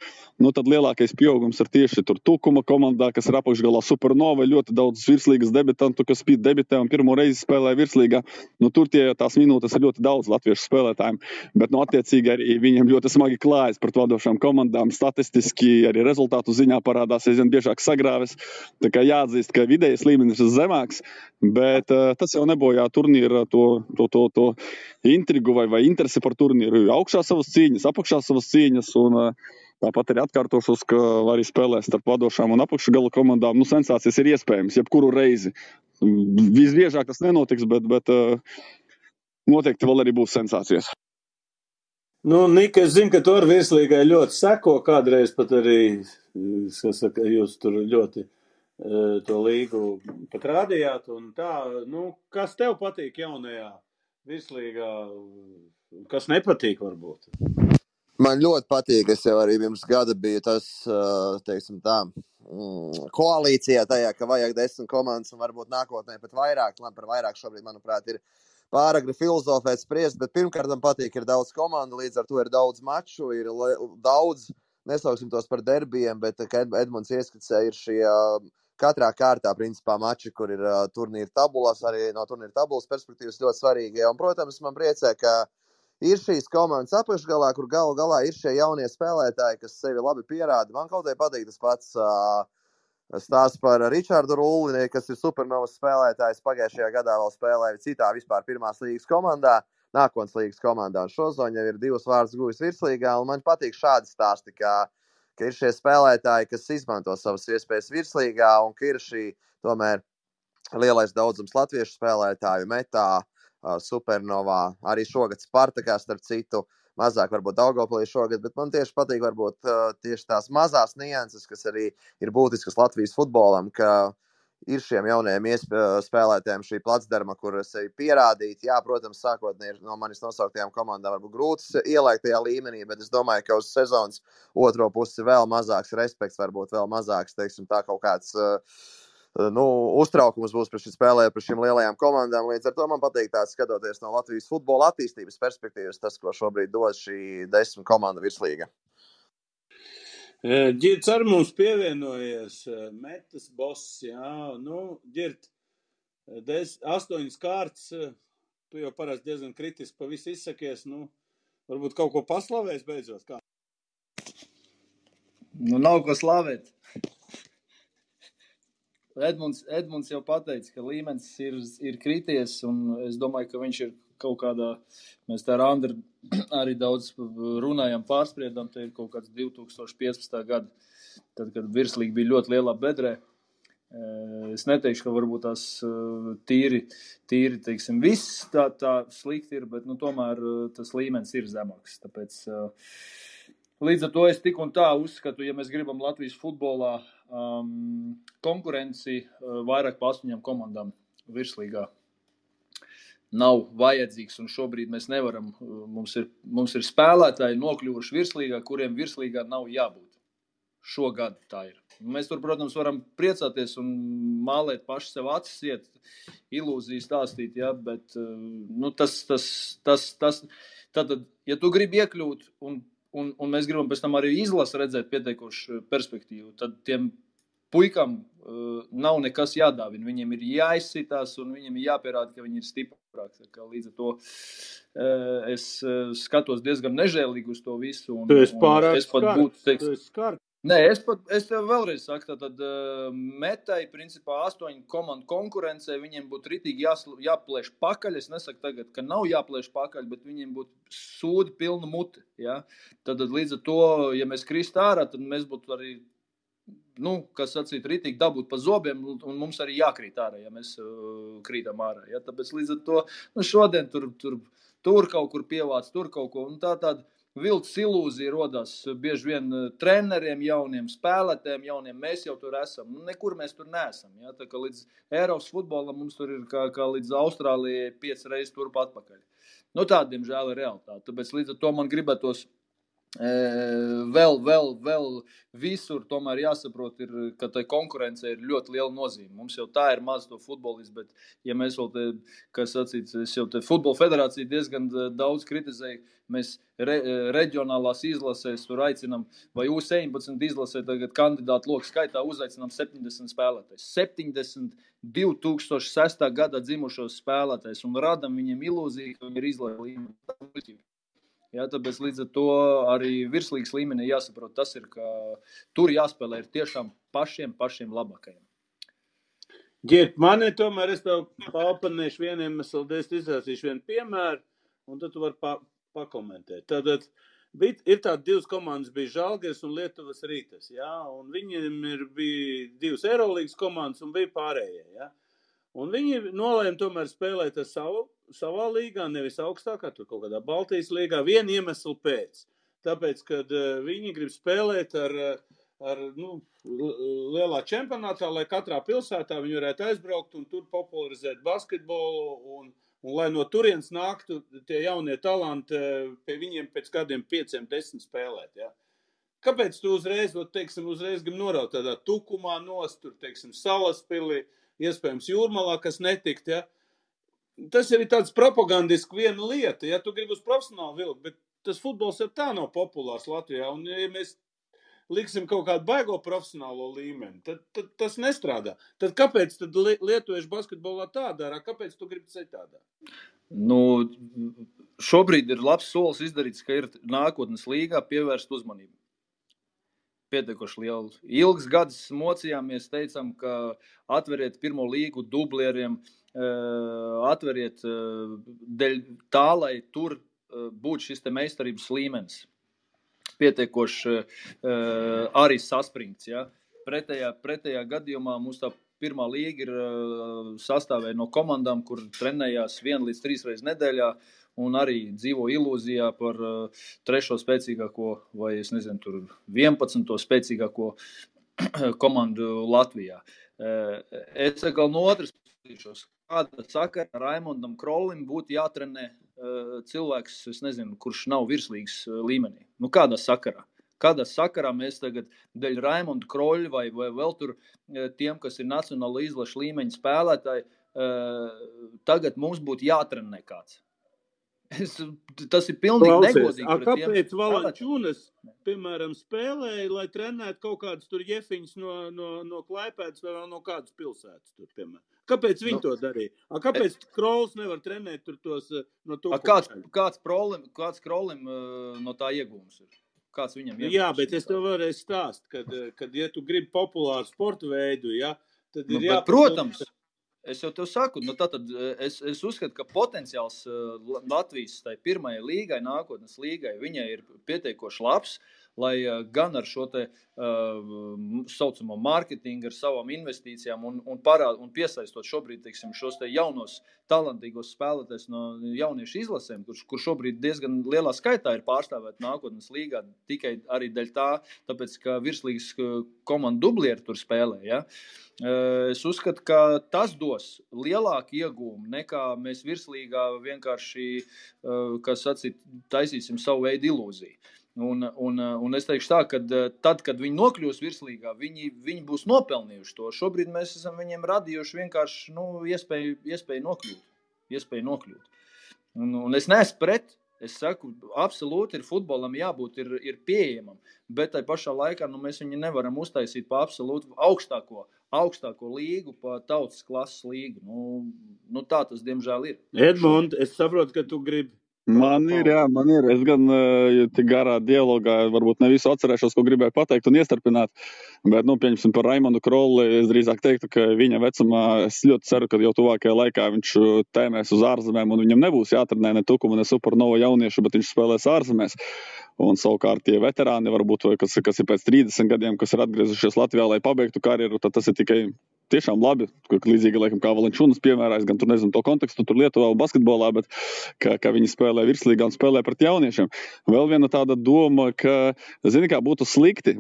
tad lielākais pieaugums ir tieši tur Tukuma komandā, kas ir apakšgalā Supernova, ļoti daudz virslīgas debitantu, kas debitē un pirmo reizi spēlē virslīgā. Tur tās minūtes ir ļoti daudz latviešu spēlētājiem, bet attiecīgi arī viņiem ļoti smagi klājas pret vadošām komandām, statistiski arī rezultātu ziņā parādās aizvien biežāk sagrāves. Tā kā jāatzīst, ka vidējais līmenis ir zemāks, bet tas jau nebojā turnīra to intrigu vai interesi par turnīru. Augšā savas cīņas, apakšā savas cīņas, un tāpat arī atkārtošos, ka arī spēlēs starp vadošām un apakšgala komandām. Sensācijas ir iespējams, jebkuru reizi. Visbiežāk tas nenotiks, bet noteikti vēl arī būs sensācijas. Nika, es zinu, ka tu ar virslīgai ļoti seko, kādreiz pat arī, jūs tur ļoti to līgu pat rādījāt, un tā, kas tev patīk jaunajā virslīgā, kas nepatīk varbūt? Man ļoti patīk, es jau arī pirms gada biju tas, teiksim tā, koalīcijā tajā, ka vajag 10 komandas un varbūt nākotnē pat vairāk. Par vairāk šobrīd, manuprāt, ir pāragri filozofēt spriest, bet pirmkārt man patīk, ir daudz komandu, līdz ar to ir daudz maču, ir daudz, nesauksim tos par derbijiem, bet, kā Edmunds ieskicēja, ir šie katrā kārtā, principā, mači, kur ir turnīra tabulas, arī no turnīra tabulas perspektīvas ļoti svarīgi. Un, protams, man priecē, ka ir šīs komandas apakšgalā, kur galu galā ir šie jaunie spēlētāji, kas sevi labi pierāda. Man kaut kā patīk tas pats stāsts par Ričārdu Rulli, kas ir Supernovas spēlētājs. Pagājušajā gadā vēl spēlēja citā vispār pirmās līgas komandā, nākotnes līgas komandā. Un šozon jau ir 2 vārdus guvis virslīgā, un man patīk šādi stāsti, kā ka ir šie spēlētāji, kas izmanto savas iespējas virslīgā, un ka ir šī tomēr lielais daudzums latviešu spēlētāju Metā, Supernovā, arī šogad Spartakā, starp citu, mazāk varbūt Daugavpilī šogad, bet man tieši patīk varbūt tieši tās mazās nianses, kas arī ir būtiskas Latvijas futbolam, ka ir šiem jaunajiem spēlētājiem šī placdarma, kur sevi pierādīt. Jā, protams, sākotnēji no manis nosauktajām komandām varbūt grūti ielaikt tajā līmenī, bet es domāju, ka uz sezonas otro pusi vēl mazāks respekts, varbūt vēl mazāks, teiksim, tā kaut kāds uztraukums būs par šī spēlē, par šīm lielajām komandām. Līdz ar to man patīk tāds skatoties no Latvijas futbola attīstības perspektīvas, tas, ko šobrīd dod šī 10 komanda virslīga. Ģirds ar mums pievienojies, Metas boss, jā, Ģirt, 8 kārtas, tu jau parasti diezgan kritiski pa visu izsakies, varbūt kaut ko paslavēs beidzot, kā? Nav ko slavēt. Edmunds jau pateica, ka līmenis ir krities, un es domāju, ka viņš ir kaut kādā, mēs tā ar Andru arī daudz runājam, pārspriedam, te ir kaut kāds 2015. Gada, tad, kad virslīgi bija ļoti lielā bedrē. Es neteikšu, ka varbūt tās tīri, teiksim, viss tā slikti ir, bet, tomēr tas līmenis ir zemāks, tāpēc līdz ar to es tik un tā uzskatu, ja mēs gribam Latvijas futbolā konkurenci vairāk pa 8 komandām virslīgā nav vajadzīgs, un šobrīd mēs nevaram, mums ir spēlētāji nokļuvuši virslīgā, kuriem virslīgā nav jābūt. Šogad tā ir. Mēs tur, protams, varam priecāties un mālēt paši sev acis, iet ilūzijas stāstīt, ja, bet tad, ja tu gribi iekļūt un mēs gribam pēc tam arī izlasi redzēt pietiekošu perspektīvu, tad tiem puikam nav nekas jādāvina. Viņiem ir jāizsitās un viņiem ir jāpierāda, ka viņi ir stiprāki. Līdz ar to es skatos diezgan nežēlīgi uz to visu. Tu esi pārāk skarts. Nē, es tev vēlreiz saku, tad Metai, principā 8 komandu konkurencē, viņiem būtu ritīgi jāplēš pakaļ. Es nesaku tagad, ka nav jāplēš pakaļ, bet viņiem būtu sūdi pilna muti. Ja? Tad līdz ar to, ja mēs krist ārā, tad mēs būtu arī, kas sacīt, ritīgi dabūt pa zobiem, un mums arī jākrīt ārā, ja mēs krītam ārā. Ja? Tāpēc līdz ar to, šodien tur kaut kur pievāc, tur kaut ko, un tāda vilts ilūzija rodās bieži vien treneriem, jauniem spēlētājiem, jauniem, mēs jau tur esam. Nekur mēs tur neesam. Ja? Tā kā līdz Eiropas futbolam mums tur ir kā līdz Austrālijai 5 reizes turp atpakaļ. Tāda, diemžēl, ir realitāte. Tāpēc līdz ar to man gribētos vēl visur tomēr jāsaprot, ka tai konkurence ir ļoti liela nozīme. Mums jau tā ir maz to futbolistu, bet ja mēs vēl es jau te futbola federāciju diezgan daudz kritizēju, mēs reģionālās izlasēs tur aicinam, vai U17 izlasē tagad kandidātu loku skaitā uzaicinām 70 spēlētājs. 70 2006. Gadā dzimušos spēlētājs un radam viņiem ilūziju, ka viņi ir izlaižu līmeni. Ja, tāpēc līdz ar to arī virslīgas līmenī jāsaprot, tas ir, ka tur jāspēlē ir tiešām pašiem labākajiem. Ģirt, mani tomēr es tev paopanēšu vieniem, es izrāsīšu vienu piemēru, un tad tu vari pakomentēt. Tātad ir tādi 2 komandas, bija Žalgiris un Lietuvas Rītas, ja, un viņiem bija 2 Eirolīgas komandas un bija pārējie, ja. Un viņi nolēma tomēr spēlēt ar savā līgā, nevis augstākā, tur kaut kādā Baltijas līgā, vienu iemeslu pēc. Tāpēc, kad viņi grib spēlēt ar lielā čempionātā, lai katrā pilsētā viņi varētu aizbraukt un tur popularizēt basketbolu un lai no turienes nāktu tie jaunie talanti pie viņiem pēc kādiem 5-10 spēlēt, ja. Kāpēc tu uzreiz grib noraut tādā Tukumā nost, tur, Salaspilī, iespējams Jūrmalā, kas netikt, ja? Tas ir tāds propagandiski viena lieta, ja tu gribi uz profesionālu vilku, bet tas futbols jau tā nav populārs Latvijā, un ja mēs liksim kaut kādu baigo profesionālo līmeni, tad tas nestrādā. Tad kāpēc tad lietuviešu basketbolā tā dara? Kāpēc tu gribi citādā? Šobrīd ir labs solis izdarīts, ka ir nākotnes līgā pievērst uzmanību. Pietiekoši lielu. Ilgs gadus mocījāmies, teicām, ka atveriet pirmo līgu dublieriem, atveriet dēļ tā, lai tur būtu šis te meistarības līmenis. pietiekoši arī saspringts. Ja? Pretējā gadījumā mums tā pirmā līga ir sastāvēja no komandām, kur trenējās 1 līdz 3 reizes nedēļā un arī dzīvo ilūzijā par 3. spēcīgāko vai, es nezinu, tur 11. spēcīgāko komandu Latvijā. Es atkal no otras puses, kāda sakara Raimondam Krolim būtu jātrenē cilvēks, es nezinu, kurš nav virslīgas līmenī. Nu, kādā sakarā? Kādā sakarā mēs tagad dēļ Raimonda Kroļa vai vēl tur tiem, kas ir nacionāla izlaša līmeņa spēlētāji, tagad mums būtu jātrenē kāds. Tas ir pilnīgi negodīgi. Kāpēc Valančūnas, piemēram, spēlēja, lai trenētu kaut kādas tur jefiņas no Klaipēdas vai no kādas pilsētas tur, piemēram? Kāpēc viņi to darīja? Kāpēc Krols nevar trenēt tur tos no Tukuma? Kāds Krolim no tā iegūms ir? Kāds viņam iegūms? Jā, bet es tev varēju stāst, kad ja tu gribi populāru sportu veidu, ja, tad ir jāpārdomā. Protams, es jau tev saku, nu tātad es uzskatu, ka potenciāls Latvijas tai pirmajai līgai, nākotnes līgai, viņai ir pietiekoši labs, lai gan ar šo te saucamo mārketingu, ar savām investīcijām un piesaistot šobrīd, teiksim, šos te jaunos talantīgos spēlētājus no jauniešu izlasēm, kur šobrīd diezgan lielā skaitā ir pārstāvēt nākotnes līgā, tikai arī dēļ tāpēc, ka virslīgas komanda dublieri tur spēlē, ja? Es uzskatu, ka tas dos lielāku iegūmu nekā mēs virslīgā vienkārši, kas sacīt, taisīsim savu veidu ilūziju. Un es teikšu tā, ka tad, kad viņi nokļūs virslīgā, viņi būs nopelnījuši to. Šobrīd mēs esam viņiem radījuši vienkārši iespēju nokļūt. Un es neesmu pret, es saku, absolūti ir futbolam jābūt, ir pieejamam, bet tai pašā laikā mēs viņu nevaram uztaisīt pa absolūti augstāko līgu, pa tautas klases līgu. Nu tā tas diemžēl ir. Edmund, es saprotu, ka tu gribi. Man ir. Es gan tik garā dialogā varbūt ne visu atcerēšos, ko gribēju pateikt un iestarpināt, bet, pieņemsim par Raimondu Kroli, es drīzāk teiktu, ka viņa vecumā, es ļoti ceru, ka jau tuvākajā laikā viņš tēmēs uz ārzemēm un viņam nebūs jātrenē ne Tukuma, ne Supernova jauniešu, bet viņš spēlēs ārzemēs. Un savukārt tie veterāni varbūt, kas ir pēc 30 gadiem, kas ir atgriezušies Latvijā, lai pabeigtu karjeru, tad tas ir tikai tiešām labi, līdzīgi laikam kā Valančūnas piemērā, es gan tur nezinu to kontekstu tur Lietuvā un basketbolā, bet ka viņi spēlē virslīgā un spēlē pret jauniešiem. Vēl viena tāda doma, ka, zini kā, būtu slikti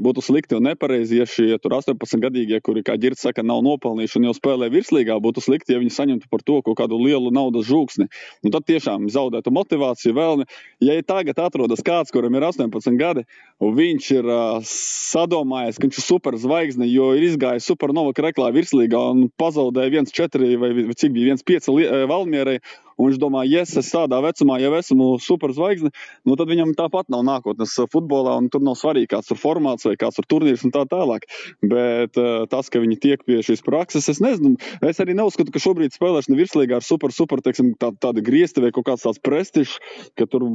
un nepareizi, ja šie tur 18-gadīgie, kuri, kā Ģirds saka, nav nopelnījuši un jau spēlē virslīgā, būtu slikti, ja viņi saņemtu par to kaut kādu lielu naudas žūksni. Un tad tiešām zaudētu motivāciju vēlmi. Ja tagad atrodas kāds, kuram ir 18 gadi, un viņš ir sadomājies, ka viņš ir superzvaigzne, jo ir izgājis Supernova kreklā virslīgā un pazaudēja 1-4 vai cik bija 1-5 Valmierai, un viņš domā, es tādā vecumā jau esmu superzvaigzne, tad viņam tāpat nav nākotnes futbolā, un tur nav svarīgi, kāds tur formāts vai kāds tur turnīrs un tā tālāk. Bet tas, ka viņi tiek pie šīs prakses, es nezinu, es arī neuzskatu, ka šobrīd spēlēšana virslīgā ar super, teiksim, tādi griezti vai kaut kāds tāds prestižs, ka tur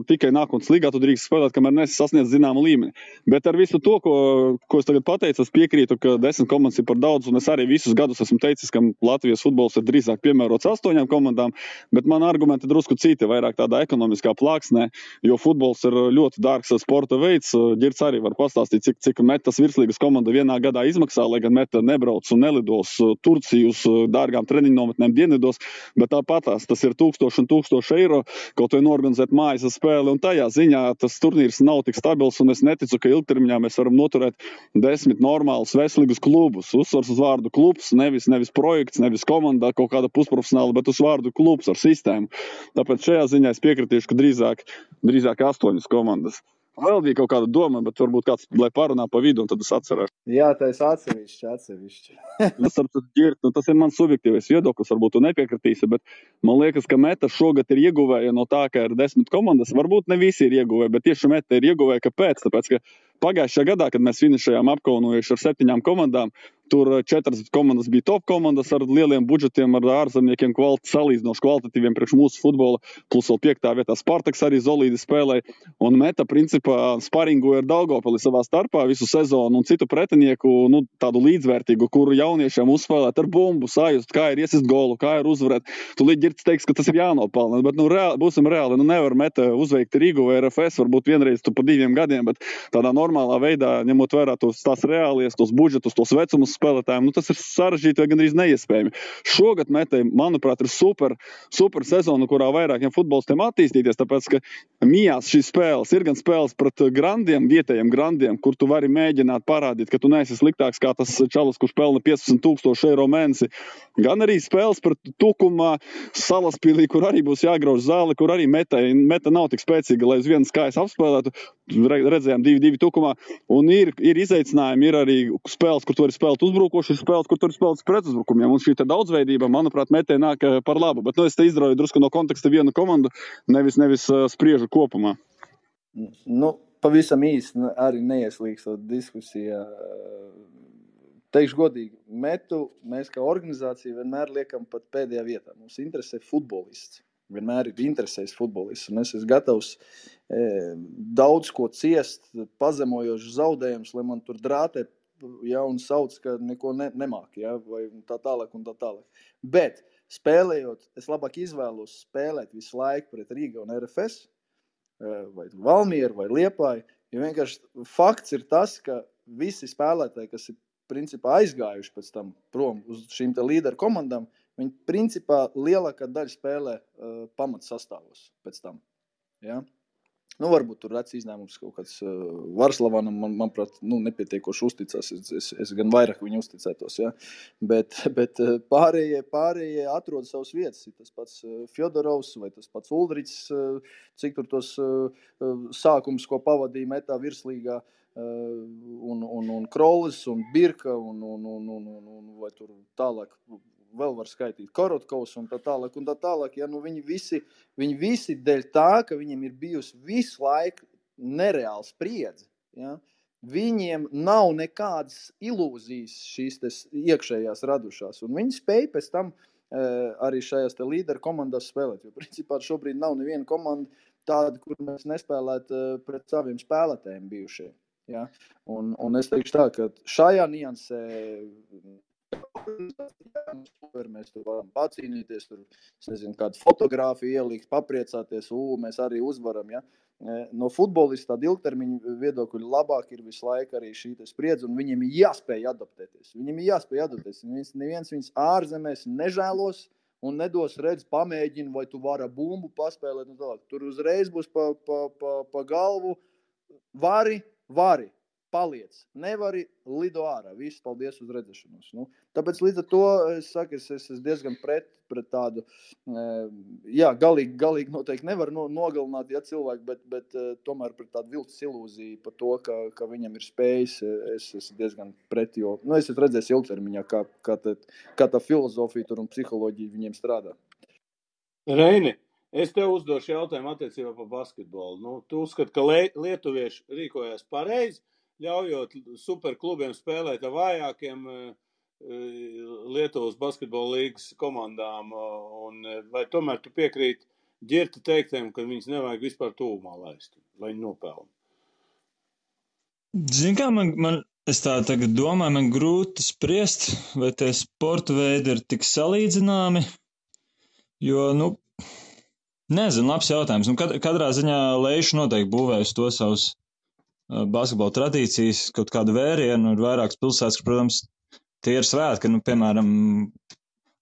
tikai nākotnes līgā tu drīkst spēlēt, kamēr nesi sasniedz zināmu līmeni. Bet ar visu to, ko es tagad pateicu, es piekrītu, ka 10 komandas ir par daudz, un es arī visus gadus esmu teicis, ka Latvijas futbols ir drīzāk piemērots 8 komandām, bet man argumenti drusku citi, vairāk tādā ekonomiskā plāksnē, jo futbols ir ļoti dārgs sporta veids. Ģirds arī var pastāstīt, cik metas virslīgas komanda vienā gadā izmaksā, lai gan meta nebrauc un nelidos Turciju uz dārgām treniņu nometnēm dienvidos, bet tāpatās tas ir 1000 un 1000 eiro, kaut vai norganizēt mājas spēli, un tajā ziņā tas turnīrs nav tik stabils, un es neticu, ka ilgtermiņā mēs varam noturēt 10 normālus veselīgus klubus. Uzsvars uz vārdu klubs, nevis projekts, nevis komanda kaut kāda pusprofesionāla, bet uz vārdu klubs ar sistēmu. Tāpēc šajā ziņā es piekritīšu, ka drīzāk 8 komandas. Vēl bija kaut kāda doma, bet varbūt kāds, lai parunā pa vidu, un tad es atcerēšu. Jā, tā es atsevišķi. Tas ir mans subjektīvais viedoklis, varbūt tu nepiekritīsi, bet man liekas, ka Meta šogad ir ieguvēja no tā, ka ir 10 komandas. Varbūt ne visi ir ieguvēji, bet tieši Meta ir ieguvēja, kāpēc? Tāpēc, ka pagājušajā gadā, kad mēs finišējām apkaunojuši ar 7 komandām, Tur 4 komandas bija top komandas ar lieliem budžetiem, ar ārzemniekiem salīdzinoši kvalitatīviem priekš mūsu futbola, plus vēl 5. vietā Spartaks arī solīdi spēlēja. Un Meta, principā, sparingoja ar Daugavpili savā starpā visu sezonu un citu pretinieku, tādu līdzvērtīgu, kuru jauniešiem uzspēlēt ar bumbu, sajust, kā ir iesist golu, kā ir uzvarēt. Tu Girts teiks, ka tas ir jānopelna, bet būsim reāli, nevar Meta uzveikt Rīgu vai RFS, varbūt vienreiz tu pa 2 gadiem, bet tādā normālā veidā, ņemot vērā tās reālies, tos budžetus, tos vecumus spēlētājiem, tas ir sarežģīti vai gandrīz neiespējami. Šogad Metai, manuprāt, ir super sezona, kurā vairākiem futbolistiem attīstīties, tāpēc, ka mijās šīs spēles ir gan spēles pret grandiem, vietējiem grandiem, kur tu vari mēģināt parādīt, ka tu neesi sliktāks kā tas čalis, kurš pelna 15,000 eiro mēnesi, gan arī spēles pret Tukumā, Salaspilī, kur arī būs jāgrauž zāli, kur arī Meta nav tik spēcīga, lai uz vienas kājas apspēlētu. Redzējām 2-2 Tukumā, un ir izaicinājumi, ir arī spēles, kur tu vari spēlēt uzbrukoši, ir spēles, kur tu vari spēlēt pretuzbrukumiem, un šī daudzveidība, manuprāt, Metai nāk par labu, bet es te izdrauju drusku no konteksta vienu komandu, nevis spriežu kopumā. Pavisam īsti arī neieslīgstot diskusijā. Teikšu godīgi, Metu mēs kā organizācija vienmēr liekam pat pēdējā vietā. Mums interesē futbolists. Vienmēr ir interesējis futbolists, un es esmu gatavs daudz ko ciest, pazemojošs zaudējums, lai man tur drātē, un sauc, ka neko nemāk, vai tā tālāk un tā tālāk. Bet spēlējot, es labāk izvēlos spēlēt visu laiku pret Rīga un RFS, vai Valmieru, vai Liepāju, jo vienkārši fakts ir tas, ka visi spēlētāji, kas ir principā aizgājuši pēc tam prom uz šīm te līderu komandām, viņi principā lielākā daļa spēlē pamats sastāvos pēc tam. Ja? Varbūt tur rēc izņēmums kaut kāds Varslavanam, manuprāt, nepietiekoši uzticās. Es gan vairāk viņu uzticētos, ja? Bet pārējie atrod savas vietas. Tas pats Fjodorovs vai tas pats Uldričs, cik tur tos sākums, ko pavadīja Metā virslīgā, un Krolis, un Birka, un vai tur tālāk vēl var skaitīt Korotkovs un tā tālāk. Ja, viņi visi dēļ tā, ka viņiem ir bijusi visu laiku nereāls spriedze. Ja, viņiem nav nekādas ilūzijas šīs iekšējās radušās. Un viņi spēj pēc tam arī šajās līderu komandās spēlēt. Jo principā šobrīd nav neviena komanda tāda, kur mēs nespēlētu pret saviem spēlētājiem bijušie. Ja? Un es teikšu tā, ka šajā niansē mēs tur varam pacīnīties, tur, kādu fotogrāfiju ielikt, papriecāties, mēs arī uzvaram, ja. No futbolista tāda ilgtermiņa viedokļa labāk ir visu laiku arī šī spriedze, un viņiem ir jāspēj adaptēties. Neviens viņus ārzemēs nežēlos un nedos redz, pamēģina, vai tu vari bumbu paspēlēt, un tālāk. Tur uzreiz būs pa galvu, vari, paliec. Nevari, lido ārā. Viss, paldies uz redzēšanos. Tāpēc līdz ar to es saku, es esmu diezgan pret tādu, galīgi noteikti nevar nogalināt, cilvēku, bet tomēr pret tādu viltus ilūziju par to, ka viņam ir spējas, es esmu diezgan pret, jo, es esmu redzējis ilgtermiņā, kā tā filozofija tur un psiholoģija viņiem strādā. Reini, es tev uzdošu jautājumu attiecībā par basketbolu. Tu uzskati, ka lietuvieši rīkojās pareizi, ļaujot superklubiem spēlēt ar vājākiem Lietuvas basketbola līgas komandām, un vai tomēr tu piekrīti Ģirta teiktiem, ka viņus nevajag vispār tūmā laist, lai viņi nopelna? Zini kā, es tā tagad domāju, man grūti spriest, vai tie sporta veidi ir tik salīdzināmi, jo, nezinu, labs jautājums. Katrā ziņā Leiša noteikti būvēs to savus basketbola tradīcijas, kaut kādu vērienu, ir vairākas pilsētas, ka, protams, tie ir svētki, piemēram,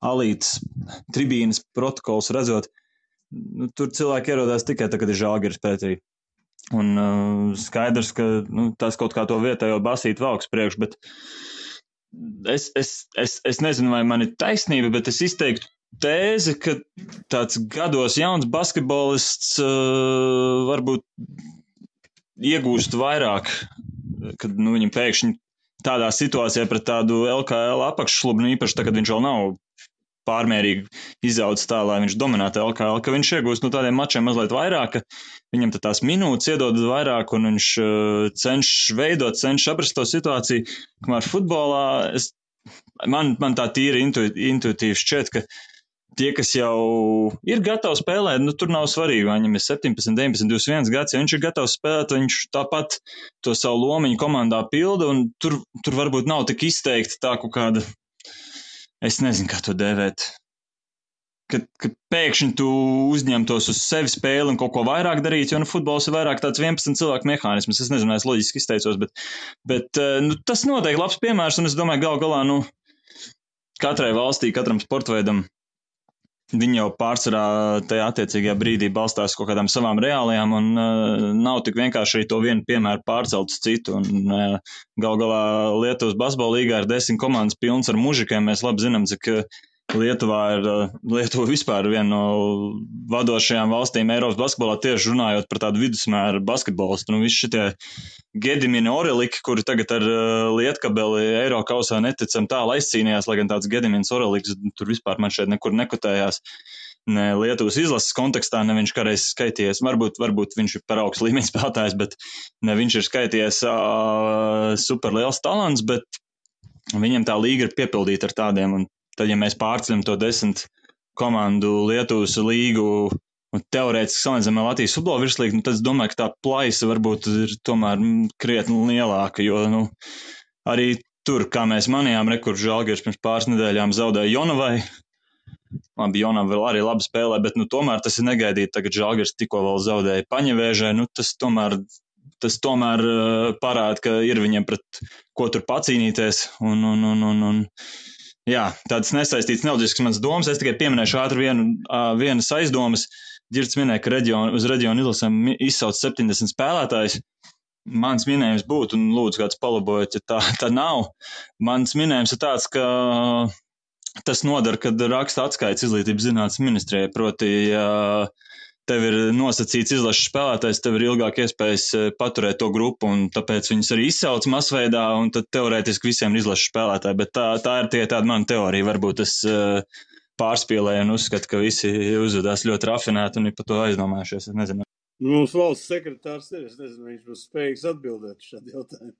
Alītas tribīnas protokols redzot, tur cilvēki ierodās tikai tā, kad ir Žalgiris pretī. Un skaidrs, ka tas kaut kā to vietējo basīt valks priekš, bet es nezinu, vai man ir taisnība, bet es izteiktu tēzi, ka tāds gados jauns basketbolists varbūt iegūst vairāk, kad viņam pēkšņi tādā situācijā pret tādu LKL apakššlubu, īpaši tā, kad viņš vēl nav pārmērīgi izaudzis tā, lai viņš dominētu LKL, ka viņš iegūst tādiem mačiem mazliet vairāk, ka viņam tās minūtes iedod vairāk un viņš cenšas aprast to situāciju, kamēr futbolā es man tā tīri intuitīvi šķiet, ka tie, kas jau ir gatavi spēlēt, nu tur nav svarīgi, vai viņam ir 17, 19, 21 gads, ja viņš ir gatavs spēlēt, viņš tāpat to savu lomiņu komandā pilda, un tur varbūt nav tik izteikti tā kaut kāda, es nezinu, kā to dēvēt, ka pēkšņi tu uzņemtos uz sevi spēli un kaut ko vairāk darīt, jo futbols ir vairāk tāds 11 cilvēku mehānisms. Es nezinu, es loģiski izteicos, bet tas noteikti labs piemērs, un es domāju, gal galā, katrai valstī, katram sportveidam, viņi jau pārsvarā tajā attiecīgajā brīdī balstās kaut kādām savām reālajām, un nav tik vienkārši arī to vienu piemēru pārcelt uz citu. Un gal galā Lietuvas basketbola līgā ir 10 komandas pilns ar mužikiem. Mēs labi zinām, cik Lietuva vispār viena no vadošajām valstīm Eiropas basketbolā, tieši runājot par tādu vidusmēru basketbolistu. Visi šitie Gedimini Oreliki, kuri tagad ar Lietkabeli Eirokausā neticam tālu aizcīnījās, lai gan tāds Gedimins Oreliks tur vispār man šeit nekur nekotējās. Ne Lietuvas izlases kontekstā, ne viņš kādreiz skaitījies, varbūt viņš ir par augstu līmeņa spēlētājs, bet ne viņš ir skaitījies super liels talants, bet viņam tā līga ir piepildīta ar tādiem, un tad, ja mēs pārceļam to 10 komandu Lietuvas līgu un teorētiski salīdzinām Latvijas futbola virslīgu, tad es domāju, ka tā plaisa varbūt ir tomēr krietni lielāka, jo arī tur, kā mēs manījām, kur Žalgiris pirms pāris nedēļām zaudēja Jonavai. Labi, Jonava vēl arī labi spēlē, bet tomēr tas ir negaidīti. Tagad Žalgiris tikko vēl zaudēja Paņevēžai. Tas tomēr parāda, ka ir viņiem pret ko tur pacīnīties. Jā, tādas nesaistītas neloģiskas manas domas. Es tikai pieminēšu ātri vienas aizdomas. Ģirds minēja, ka uz reģionu izlasēm izsauc 70 spēlētājs. Mans minējums būtu, un lūdzu kāds palabojot, ja tā nav. Mans minējums ir tāds, ka tas nodara, kad raksta atskaits izglītības zinātnes ministrijai. Proti, ja tev ir nosacīts izlases spēlētājs, tev ir ilgāk iespējas paturēt to grupu, un tāpēc viņus arī izsauc masveidā, un tad teorētiski visiem ir izlases spēlētāji. Bet tā ir tie tāda mana teorija. Varbūt es pārspīlēju un uzskatu, ka visi uzvedās ļoti rafinēti un ir par to aizdomājušies. Es nezinu. Mums valsts sekretārs ir, es nezinu, viņš būs spējīgs atbildēt šādu jautājumu.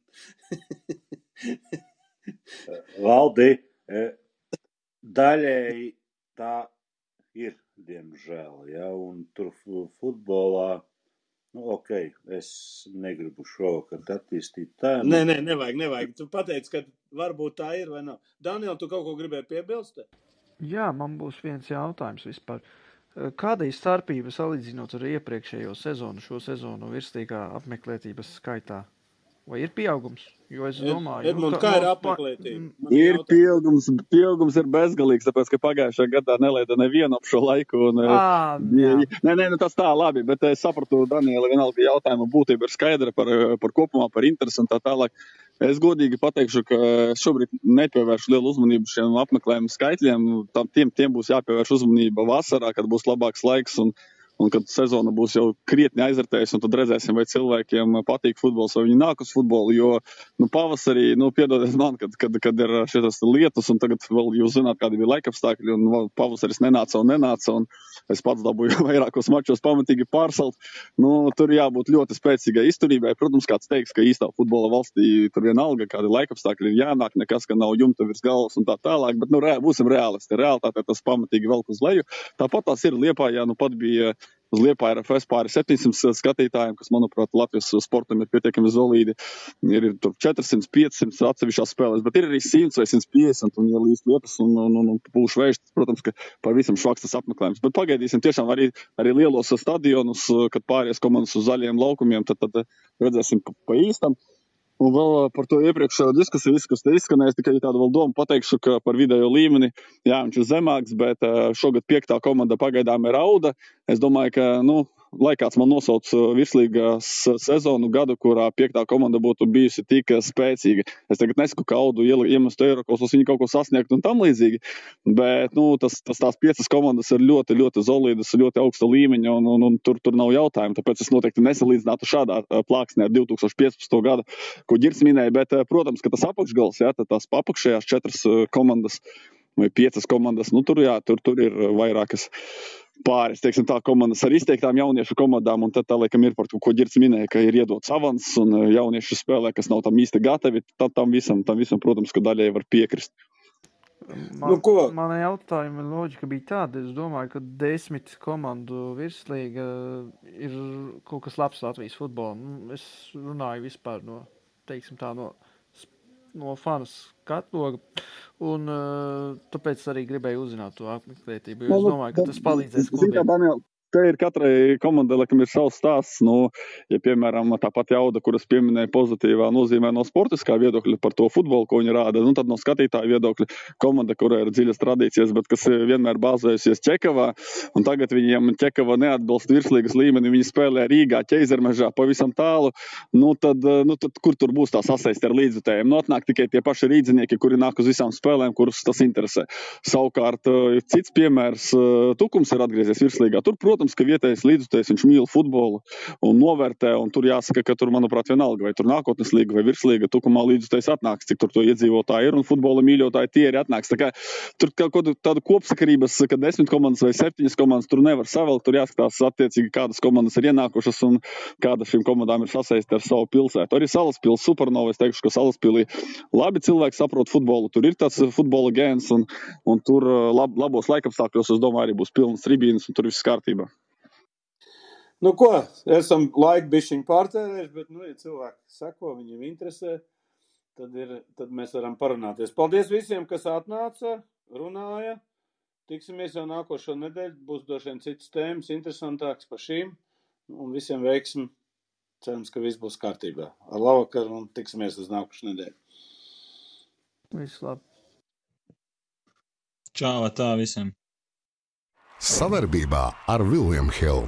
Valdi, daļēji tā ir, diemžēl, ja, un tur futbolā, es negribu šovakar attīstīt tēmu. Nē, nevajag. Tu pateici, ka varbūt tā ir vai nav. Daniel, tu kaut ko gribēji piebilst? Jā, man būs viens jautājums vispār. Kāda ir starpība salīdzinot ar iepriekšējo sezonu, šo sezonu virslīgā apmeklētības skaitā? Vai ir pieaugums? Jo es domāju, Edmund, kā ir apmeklētība? Ir pieaugums ir bezgalīgs, tāpēc, ka pagājušajā gadā nelaida nevienu ap šo laiku. Nē, tas tā labi, bet es sapratu, Daniela, vienalga jautājuma būtība ir skaidra par kopumā, par interesi un tā tālāk. Es godīgi pateikšu, ka šobrīd nepievēršu lielu uzmanību šiem apmeklējumu skaitļiem. Tiem būs jāpievērš uzmanība vasarā, kad būs labāks laiks un kad sezona būs jau krietni aizvērtējusi, un tad redzēsim, vai cilvēkiem patīk futbols, vai viņi nāk uz futbolu, jo pavasarī, piedodiet man, kad ir šitas lietus, un tagad vēl jūs zināt, kādi bija laikapstākļi, un pavasaris nenāca, un es pats dabūju vairākos mačos pamatīgi pārsalt. Tur jābūt ļoti spēcīgai izturībai. Protams, kāds teiks, ka īstā futbola valstī tur vienalga, kādi laikapstākļi ir jānāk, nekas, ka nav jumta virs galvas un tā tālāk, bet būsim reālisti. Realitātē tas pamatīgi velk uz leju. Tāpat tās ir Liepājā, pat bija uz Liepāja RFS pāri 700 skatītājiem, kas, manuprāt, Latvijas sportam ir pietiekami solīdi. Ir tur 400, 500 atsevišķās spēlēs, bet ir arī 100 vai 150, un ja līdz lietas un pūš vējš, protams, ka pavisam švaks tas apmeklējums. Bet pagaidīsim tiešām arī lielos stadionus, kad pāries komandas uz zaļiem laukumiem, tad redzēsim pa īstam. Un vēl par to iepriekšējo diskusiju, kas te izskanēs, tikai tādu vēl domu pateikšu, ka par vidējo līmeni, jā, viņš ir zemāks, bet šogad 5. komanda pagaidām ir Auda. Es domāju, ka, lai kāds man nosauc virslīgas sezonu gadu, kurā 5. komanda būtu bijusi tik spēcīga. Es tagad nesaku, ka Audu iemestu Eirokausos viņi kaut ko sasniegt un tam līdzīgi, bet, tās 5 komandas ir ļoti, ļoti solīdas, ļoti augsta līmeņa, un tur nav jautājumu, tāpēc es noteikti nesalīdzinātu šādā plāksnē ar 2015. gadu, ko Ģirds minēja, bet, protams, ka tas apakšgals, jā, tās apakšējās 4 komandas vai 5 komandas, tur ir vairākas pāris, teiksim tā, komandas ar izteiktām jauniešu komandām, un tad tā, laikam, ir par to, ko Ģirds minēja, ka ir iedots avans un jauniešu spēlē, kas nav tam īsti gatavi, tam visam, protams, ka daļai var piekrist. Nu, ko? Mana jautājuma loģika bija tāda, es domāju, ka 10 komandu virslīga ir kaut kas labs Latvijas futbolam. Es runāju vispār no, teiksim tā, no fanas katloga, un tāpēc arī gribēju uzzināt to apmeklētību, jo es domāju, ka tas palīdzēs klubiem. Te ir katrai komandai, laikam, ir savs stāsts. Nu, ja, piemēram, tāpat Jauda, kuras pieminēja pozitīvā nozīmē no sportiskā viedokļa par to futbolu, ko viņi rāda, nu, tad no skatītāja viedokļa komanda, kurai ir dziļas tradīcijas, bet kas vienmēr bāzējusies Čekavā, un tagad viņiem Čekava neatbilst virslīgas līmeni, viņi spēlē Rīgā, Ķeizermežā, pavisam tālu, nu, tad kur tur būs tā sasaiste ar līdzjutējiem? Nu, atnāk tikai tie paši rīdzinieki, kuri nāk uz visām spēlēm, kurus tas interesē. Savukārt, cits piemērs, Tukums ir atgriezies virslīgā. Tur, protams, ka vietējais līdzjutējs, viņš mīl futbolu un novērtē, un tur jāsaka, ka tur, manuprāt, vienalga, vai tur nākotnes līga vai virslīga, Tukumā līdzjutējs atnāks, cik tur to iedzīvotāji ir, un futbola mīļotāji tie arī atnāks. Tā kā tur kaut tādu kopsakarības, ka 10 komandas vai 7 komandas tur nevar savilkt, tur jāskatās attiecīgi, kādas komandas ir ienākušas un kāda šīm komandām ir sasaiste ar savu pilsētu. Arī Salaspils Supernova, es teikšu, ka Salaspilī labi cilvēki saprot futbolu, tur ir tāds futbola gēns, un tur labos laikapstākļos, es domāju, arī būs pilnas tribīnes, un tur viss kārtībā. Nu ko, esam laiku bišķiņu pārtērējuši, bet, nu, ja cilvēki seko, viņiem interesē, tad mēs varam parunāties. Paldies visiem, kas atnāca, runāja. Tiksimies jau nākošo nedēļu, būs droši vien citas tēmas, interesantāks par šīm, un visiem veiksim. Cerams, ka viss būs kārtībā. Ar labvakaru un tiksimies uz nākošu nedēļu. Viss labi. Čau, tā visiem. Savarbībā ar William Hill.